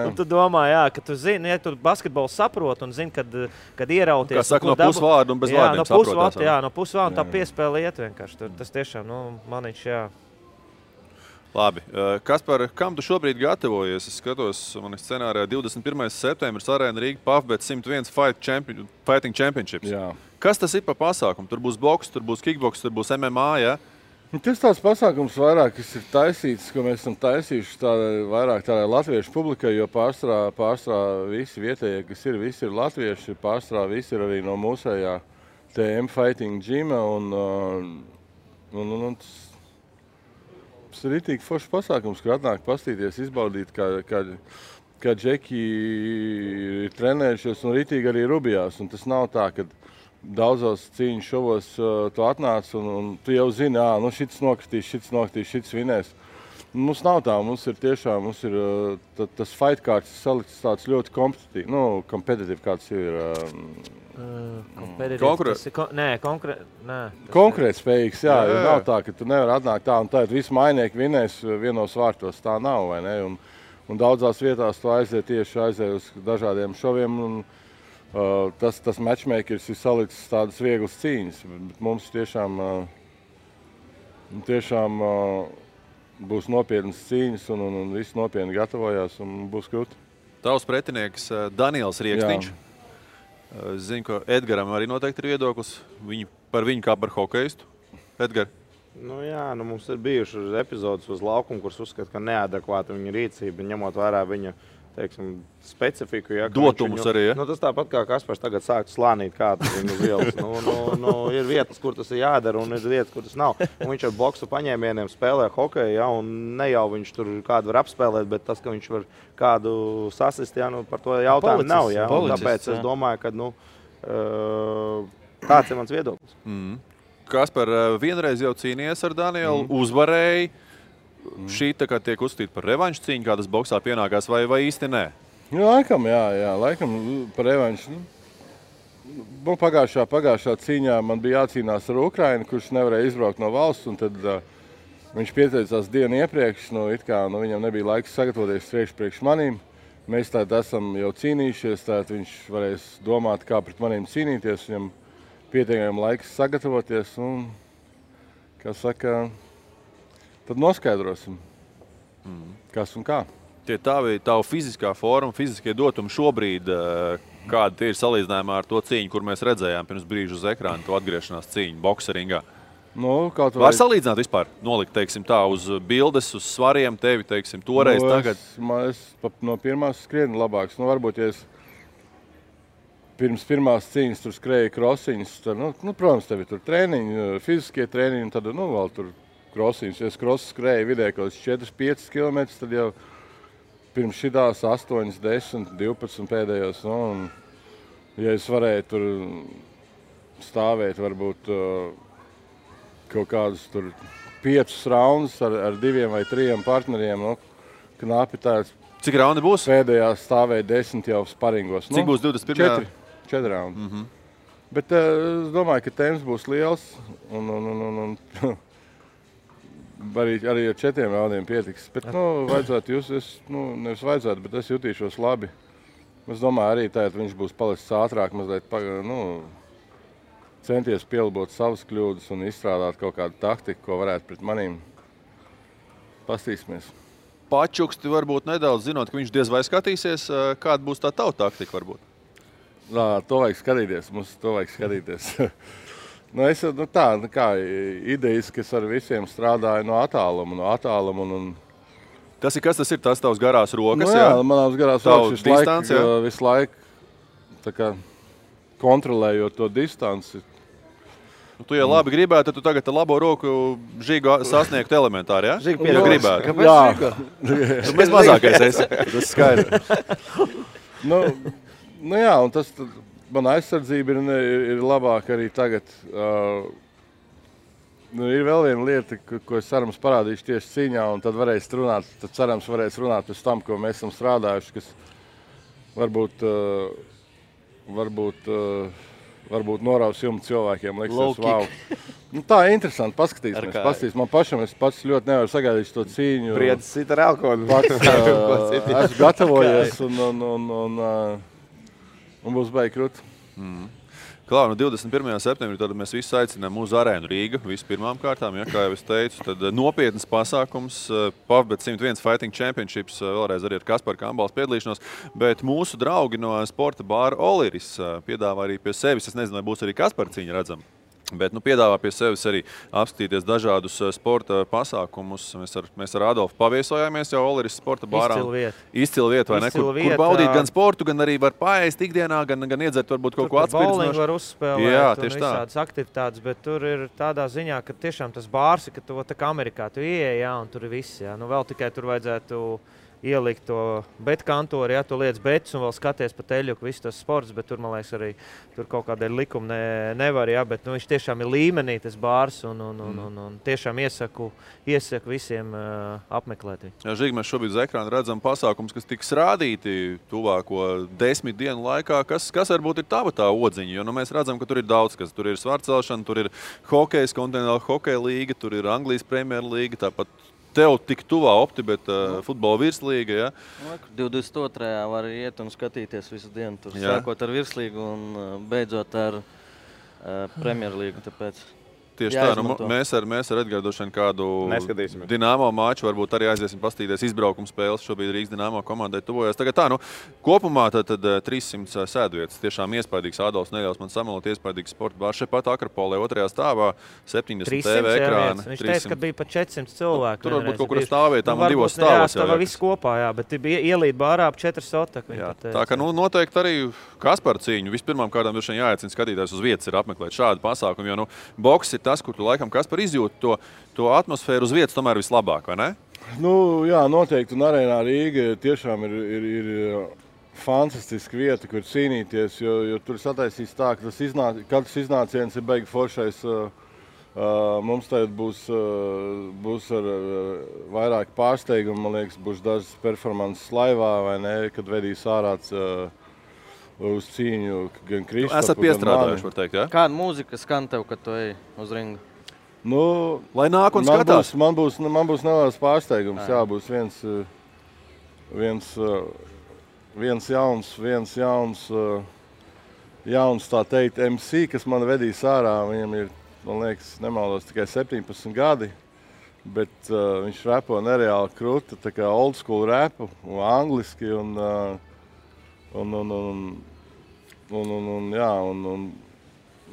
Un tu domā, ka tu zini, ja tu basketbolu saprot un zini, kad ierauties. Kā saka, no pusvārdu un bez vārdiem saprotās. No pusvārdu un tā piespēle iet vienkārši. Tas tiešām, maniņš, jā. Labi. Kaspar, kam tu šobrīd gatavojies? Es skatos, man scenārijā 21. septembris Arēna Rīga PAFBet 101 Fighting Championships. Jā. Kas tas ir pa pasākumu? Tur būs boks, tur būs kickboks, tur būs MMA, jā? Tas tāds pasākums vairāk, kas ir taisīts, ko mēs esam taisījuši vairāk tādai latviešu publikai, jo pārstrā visi vietējie, kas ir, visi ir latvieši, pārstrā visi ir arī no mūsējā TM Fighting Gyma, un tas ir ritīgi foršs pasākums, kur atnāk pastīties, izbaudīt, kā džeki ir trenējušies un ritīgi arī rubjās. Un tas nav tā, ka daudzos cīņu šovos tu atnāc un tu jau zini, šits nokritīs, šits vinēs. Mums nav tā, mums ir tas fight kārts salikts tāds ļoti kompetitīvi, kāds ir. Konkurētspējīgs, jā. Nav tā, ka tu nevar atnākt tā un tā, visi mainieki vinēs vienos vārtos. Tā nav, vai ne? Un daudzās vietās tu aiziet uz dažādiem šoviem. Un, tas matchmakers ir salicis tādas vieglas cīņas. Bet mums tiešām būs nopietnas cīņas un visi nopietni gatavojās un būs krūti. Tavs pretinieks Daniels Rieksniņš. Zinu, ka Edgaram arī noteikti ir viedoklis par viņu kā par hokeistu. Edgar? Mums ir bijušas epizodes uz laukumu, kuras uzskata, ka neadekvāta viņa rīcība, ņemot vērā viņa specifiku. Dotumus arī, ja? Tas tāpat kā Kaspars tagad sāktu slānīt kādu viņu uz ielas. Ir vietas, kur tas ir jādara, un ir vietas, kur tas nav. Un viņš ar boksu paņēmieniem spēlē hokeju, un ne jau viņš tur kādu var apspēlēt, bet tas, ka viņš var kādu sasist, par to jautājumu nav. Tāpēc es domāju, ka tāds ir mans viedoklis. Kaspar, vienreiz jau cīnījies ar Danielu, uzvarēji. Šī tiek uzskatīta par revanšu cīņu, kā tas boksā pienākās, vai īsti nē? Laikam par revanšu. Pagājušā cīņā man bija jācīnās ar Ukrainu, kurš nevarēja izbraukt no valsts, un tad viņš pieteicās dienu iepriekš, viņam nebija laiks sagatavoties priekš manīm. Mēs tātad esam jau cīnījušies, tātad viņš varēs domāt, kā pret manīm cīnīties, viņam pietiekami laiks sagatavoties, un, kā saka, tad noskaidrosim, kas un kā. Tie tavu fiziskā forma, fiziskie dotumi šobrīd, kādi tie ir salīdzinājumā ar to cīņu, kur mēs redzējām pirms brīža uz ekrāna, to atgriešanās cīņu bokseringā? Var salīdzināt vispār, nolikt, tā, uz bildes, uz svariem tevi, toreiz, tagad? Es no pirmās skrienu labāks. Varbūt, ja es pirms pirmās cīņas tur skrēju krosiņas, tad, protams, tevi tur trēniņi, fiziskie trēniņi, un tad, vēl tur krosiņus. Ja es skrēju vidēji kaut 4-5 km, tad jau pirms šitās 8, 10, 12 pēdējos. Ja es varēju tur stāvēt varbūt kaut kādus tur 5 raundus ar 2 vai 3 partneriem, knapi tāds. Cik raundi būs? Pēdējā stāvēja 10 jau sparingos. Cik būs 21? 4 raundi. Bet es domāju, ka temps būs liels un arī ar 4 raundiem pietiks. Bet, vajadzētu nevis vajadzētu, bet es jutīšos labi. Es domāju, arī tagad viņš būs palicis ātrāk, mazliet centies pielabot savas kļūdas un izstrādāt kaut kādu taktiku, ko varētu pret manīm. Pastīsimies. Pačuksti varbūt nedaudz zinot, ka viņš diez vai skatīsies, kāda būs tā tava taktika varbūt? To vajag skatīties, mums to vajag skatīties. Idejas, kas ar visiem strādāja no attāluma. Kas tas ir? Tas tavs garās rokas? Manās garās rokas visu laiku kontrolējot to distanci. Tu, ja labi gribētu, tad tu tagad ar labo roku Žigu sasniegtu elementāri, ja? Žigu gribētu. Kāpēc Žiga? Tu mēs mazākais esi. Tas skaidrs. Un tas... Mana aizsardzība ir labāka arī tagad. Ir vēl viena lieta, ko es cerams parādīšu tieši cīņā, un tad cerams varēs runāt pēc tam, ko mēs esam strādājuši, kas varbūt noraus jumtu cilvēkiem, liksies, wow. Tā ir interesanti, paskatīsimies. Man pašam es pats ļoti nevaru sagaidīt to cīņu. Priedis sit ar alkoholu. Esmu gatavojies un būs baigi krūti. Klār, 21. septembrī tad mēs visi aicinām uz arēnu Rīga, visu pirmām kārtām, ja, kā jau es teicu, tad nopietnas pasākums, PAFBet 101 Fighting Championships, vēlreiz arī ar Kasparu Kambals piedalīšanos, bet mūsu draugi no sporta bāra Oliris piedāvā arī pie sevis, es nezinu, vai būs arī Kaspara cīņa redzama. Bet piedāvā pie sevis arī apskatīties dažādus sporta pasākumus. Mēs ar Adolfu paviesojāmies jau Oliris sporta bārā. Izcila vieta, vai ne? Kur baudīt gan sportu, gan arī var paēst ikdienā, gan iedzert varbūt kaut ko atspirdzinošu. Bowling var uzspēlēt un visādas aktivitātes, bet tur ir tādā ziņā, ka tiešām tas bārs, ka to tā kā Amerikā tu ieej, un tur ir viss. Nu vēl tikai tur vajadzētu ielikt to betkantori, ja tu liec betus un vēl skaties pa teļuku, viss tas sports, bet tur, man liekas, arī tur kaut kādēļ likumi nevar, ja, bet viņš tiešām ir līmenī, tas bārs, un tiešām iesaku visiem apmeklēt viņu. Jā, Žīgi, mēs šobrīd uz ekrāna redzam pasākums, kas tiks rādīti tuvāko 10 dienu laikā. Kas varbūt ir tava tā odziņa? Jo mēs redzam, ka tur ir daudz kas. Tur ir svarcelšana, tur ir hokejs, kontinentāla hokeja līga, tur ir Anglijas Premier līga, tāpat tev tik tuvā OptiBet futbola virslīga, ja? 22. var iet un skatīties visu dienu tur, sākot ar virslīgu un beidzot ar Premjerlīgu, tāpēc tieši tā, mēs ar Edgārdu kādu Dinamo maču varbūt arī aiziesim pastīties izbraukuma spēles. Šobrīd Rīgas Dinamo komandai tuvojas. Tagad tā, kopumā tad 300 sēdvietas. Tiešām iespaidīgs Ādolfs neļaus man samalot, iespaidīgs sporta bārs šeit pat Akropolē, otrajā stāvā 70 TV ekrāni. Viņš teica, ka bija pat 400 cilvēku. Tur varbūt kaut kur stāvvietām un divos stāvos. Jā, viss kopā, jā, bet bija ielīt bārā ap 4 sotaku. Tā kā noteikti arī Kaspara cīņu. Vispirmām kārtām droši vien jāaicina skatītājs uz vietas ir apmeklēt šādu pasākumu, jo boks ir tas, kur tu laikam Kaspar izjūti to atmosfēru uz vietas tomēr vislabāk, vai ne? Jā, noteikti. Un arēnā Rīga tiešām ir fantastiska vieta, kur cīnīties, jo tur sataisīs tā, ka katrs iznāciens ir beigi foršais. Mums tagad būs ar vairāk pārsteigumu, man liekas, būs dažas performances laivā, vai ne, kad vedīs ārāds uz cīņu gan Kristapu, esat piestrādājuši, var teikt, ja? Kāda mūzika skan tev, kad tu ej uz ringu? Lai nāk un skatās. Man būs neliels pārsteigums, jā, būs viens jauns, tā teikt, MC, kas man vedīs ārā. Viņam ir, man liekas, nemaldos tikai 17 gadi, bet viņš repo nereāli kruta, tā kā old school repu, angliski un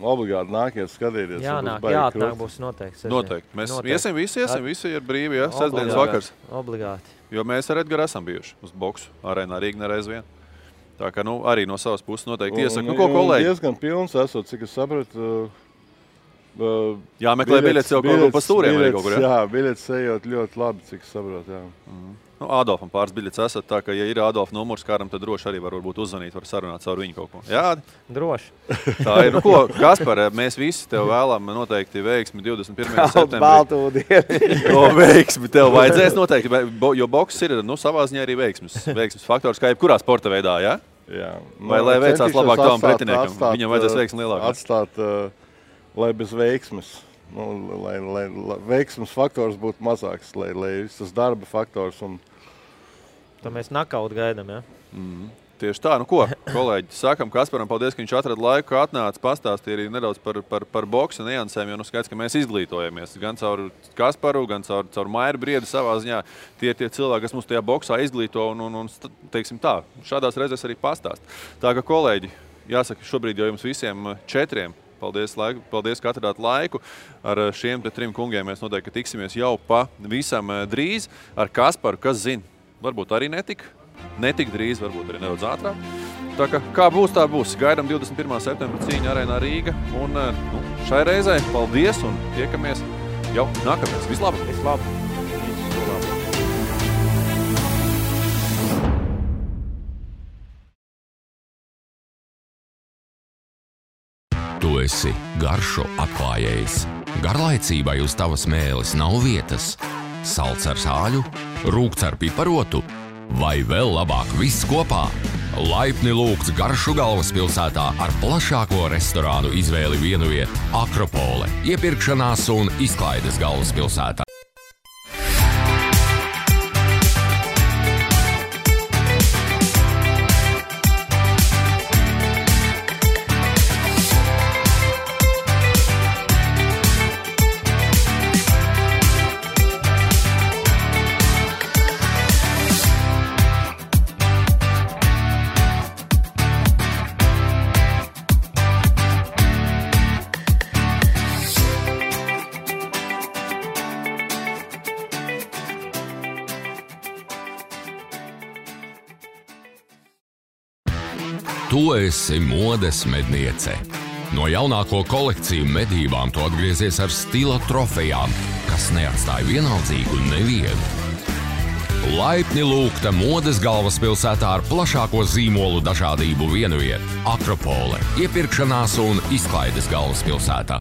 obligāti nākiet skatīties. Jāatnāk būs noteikti. Noteikti. Mēs visi ir brīvi, ja? Sestdienas vakars. Obligāti. Jo mēs ar Edgaru esam bijuši uz boksu arēnā Rīga nereiz vien. Tā kā arī no savas puses noteikti iesaku. Ko kolēģi? Diezgan pilns esot, cik es sapratu. Jāmeklē biļetes jau kaut ko pa stūriem arī kaut kur, ja? Jā, biļetes ejot ļoti labi, cik es sapratu, jā. Adolfam pāris biļetes esat, tā ka, ja ir Adolfa numurs kāram, tad droši arī varbūt uzzvanīt, var sarunāt caur viņu kaut ko. Jā? Droši. Tā ir. Kaspar, mēs visi tev vēlam noteikti veiksmi 21. septembrī. Baltu dienu. To veiksmi tev vajadzēs noteikti, jo boks ir savā ziņā arī veiksmes faktors, kā jebkurā sporta veidā, jā? Jā. Vai lai veicās labāk tavam pretiniekam, viņam vajadzēs veiksmi lielākā. Atstāt, lai bez veiksmes. Lai veiksmes faktors būtu mazāks, lai tas darba faktors un tā mēs nakaut gaidām, ja? Tieši tā. Kolēģi, sakam Kasparam paldies, ka viņš atrada laiku, atnāca, pastāstīja arī nedaudz par boksa niansēm, jo skaidrs, ka mēs izglītojamies gan caur Kasparu, gan caur Mairu Briedu savā ziņā. Tie cilvēki, kas mums tajā boksā izglīto un teiksim tā, šādās reizēs arī pastāst. Tā ka, kolēģi, jāsaka, šobrīd jau jums visiem 4. Paldies, ka atradāt laiku. Ar šiem 3 kungiem mēs noteikti tiksimies jau pavisam drīz. Ar Kasparu, kas zina, varbūt arī netik drīz, varbūt arī nedaudz ātrāk. Tā kā būs, tā būs. Gaidām 21. septembra cīņu arēnā Rīga. Un šai reizē paldies un tiekamies jau nākamais. Vislabāk! Tu esi garšo atklājējs. Garlaicībai uz tavas mēles nav vietas. Salds ar sāļu, rūgts ar piparotu vai vēl labāk viss kopā. Laipni lūgts Garšu galvaspilsētā ar plašāko restorānu izvēli vienvieta Akropole, iepirkšanās un izklaides galvaspilsētā. Tu esi modes medniece. No jaunāko kolekciju medībām tu atgriezies ar stila trofejām, kas neatstāja vienaldzīgu nevienu. Laipni lūgta modes galvaspilsētā ar plašāko zīmolu dažādību vienviet. Akropole, iepirkšanās un izklaides galvaspilsētā.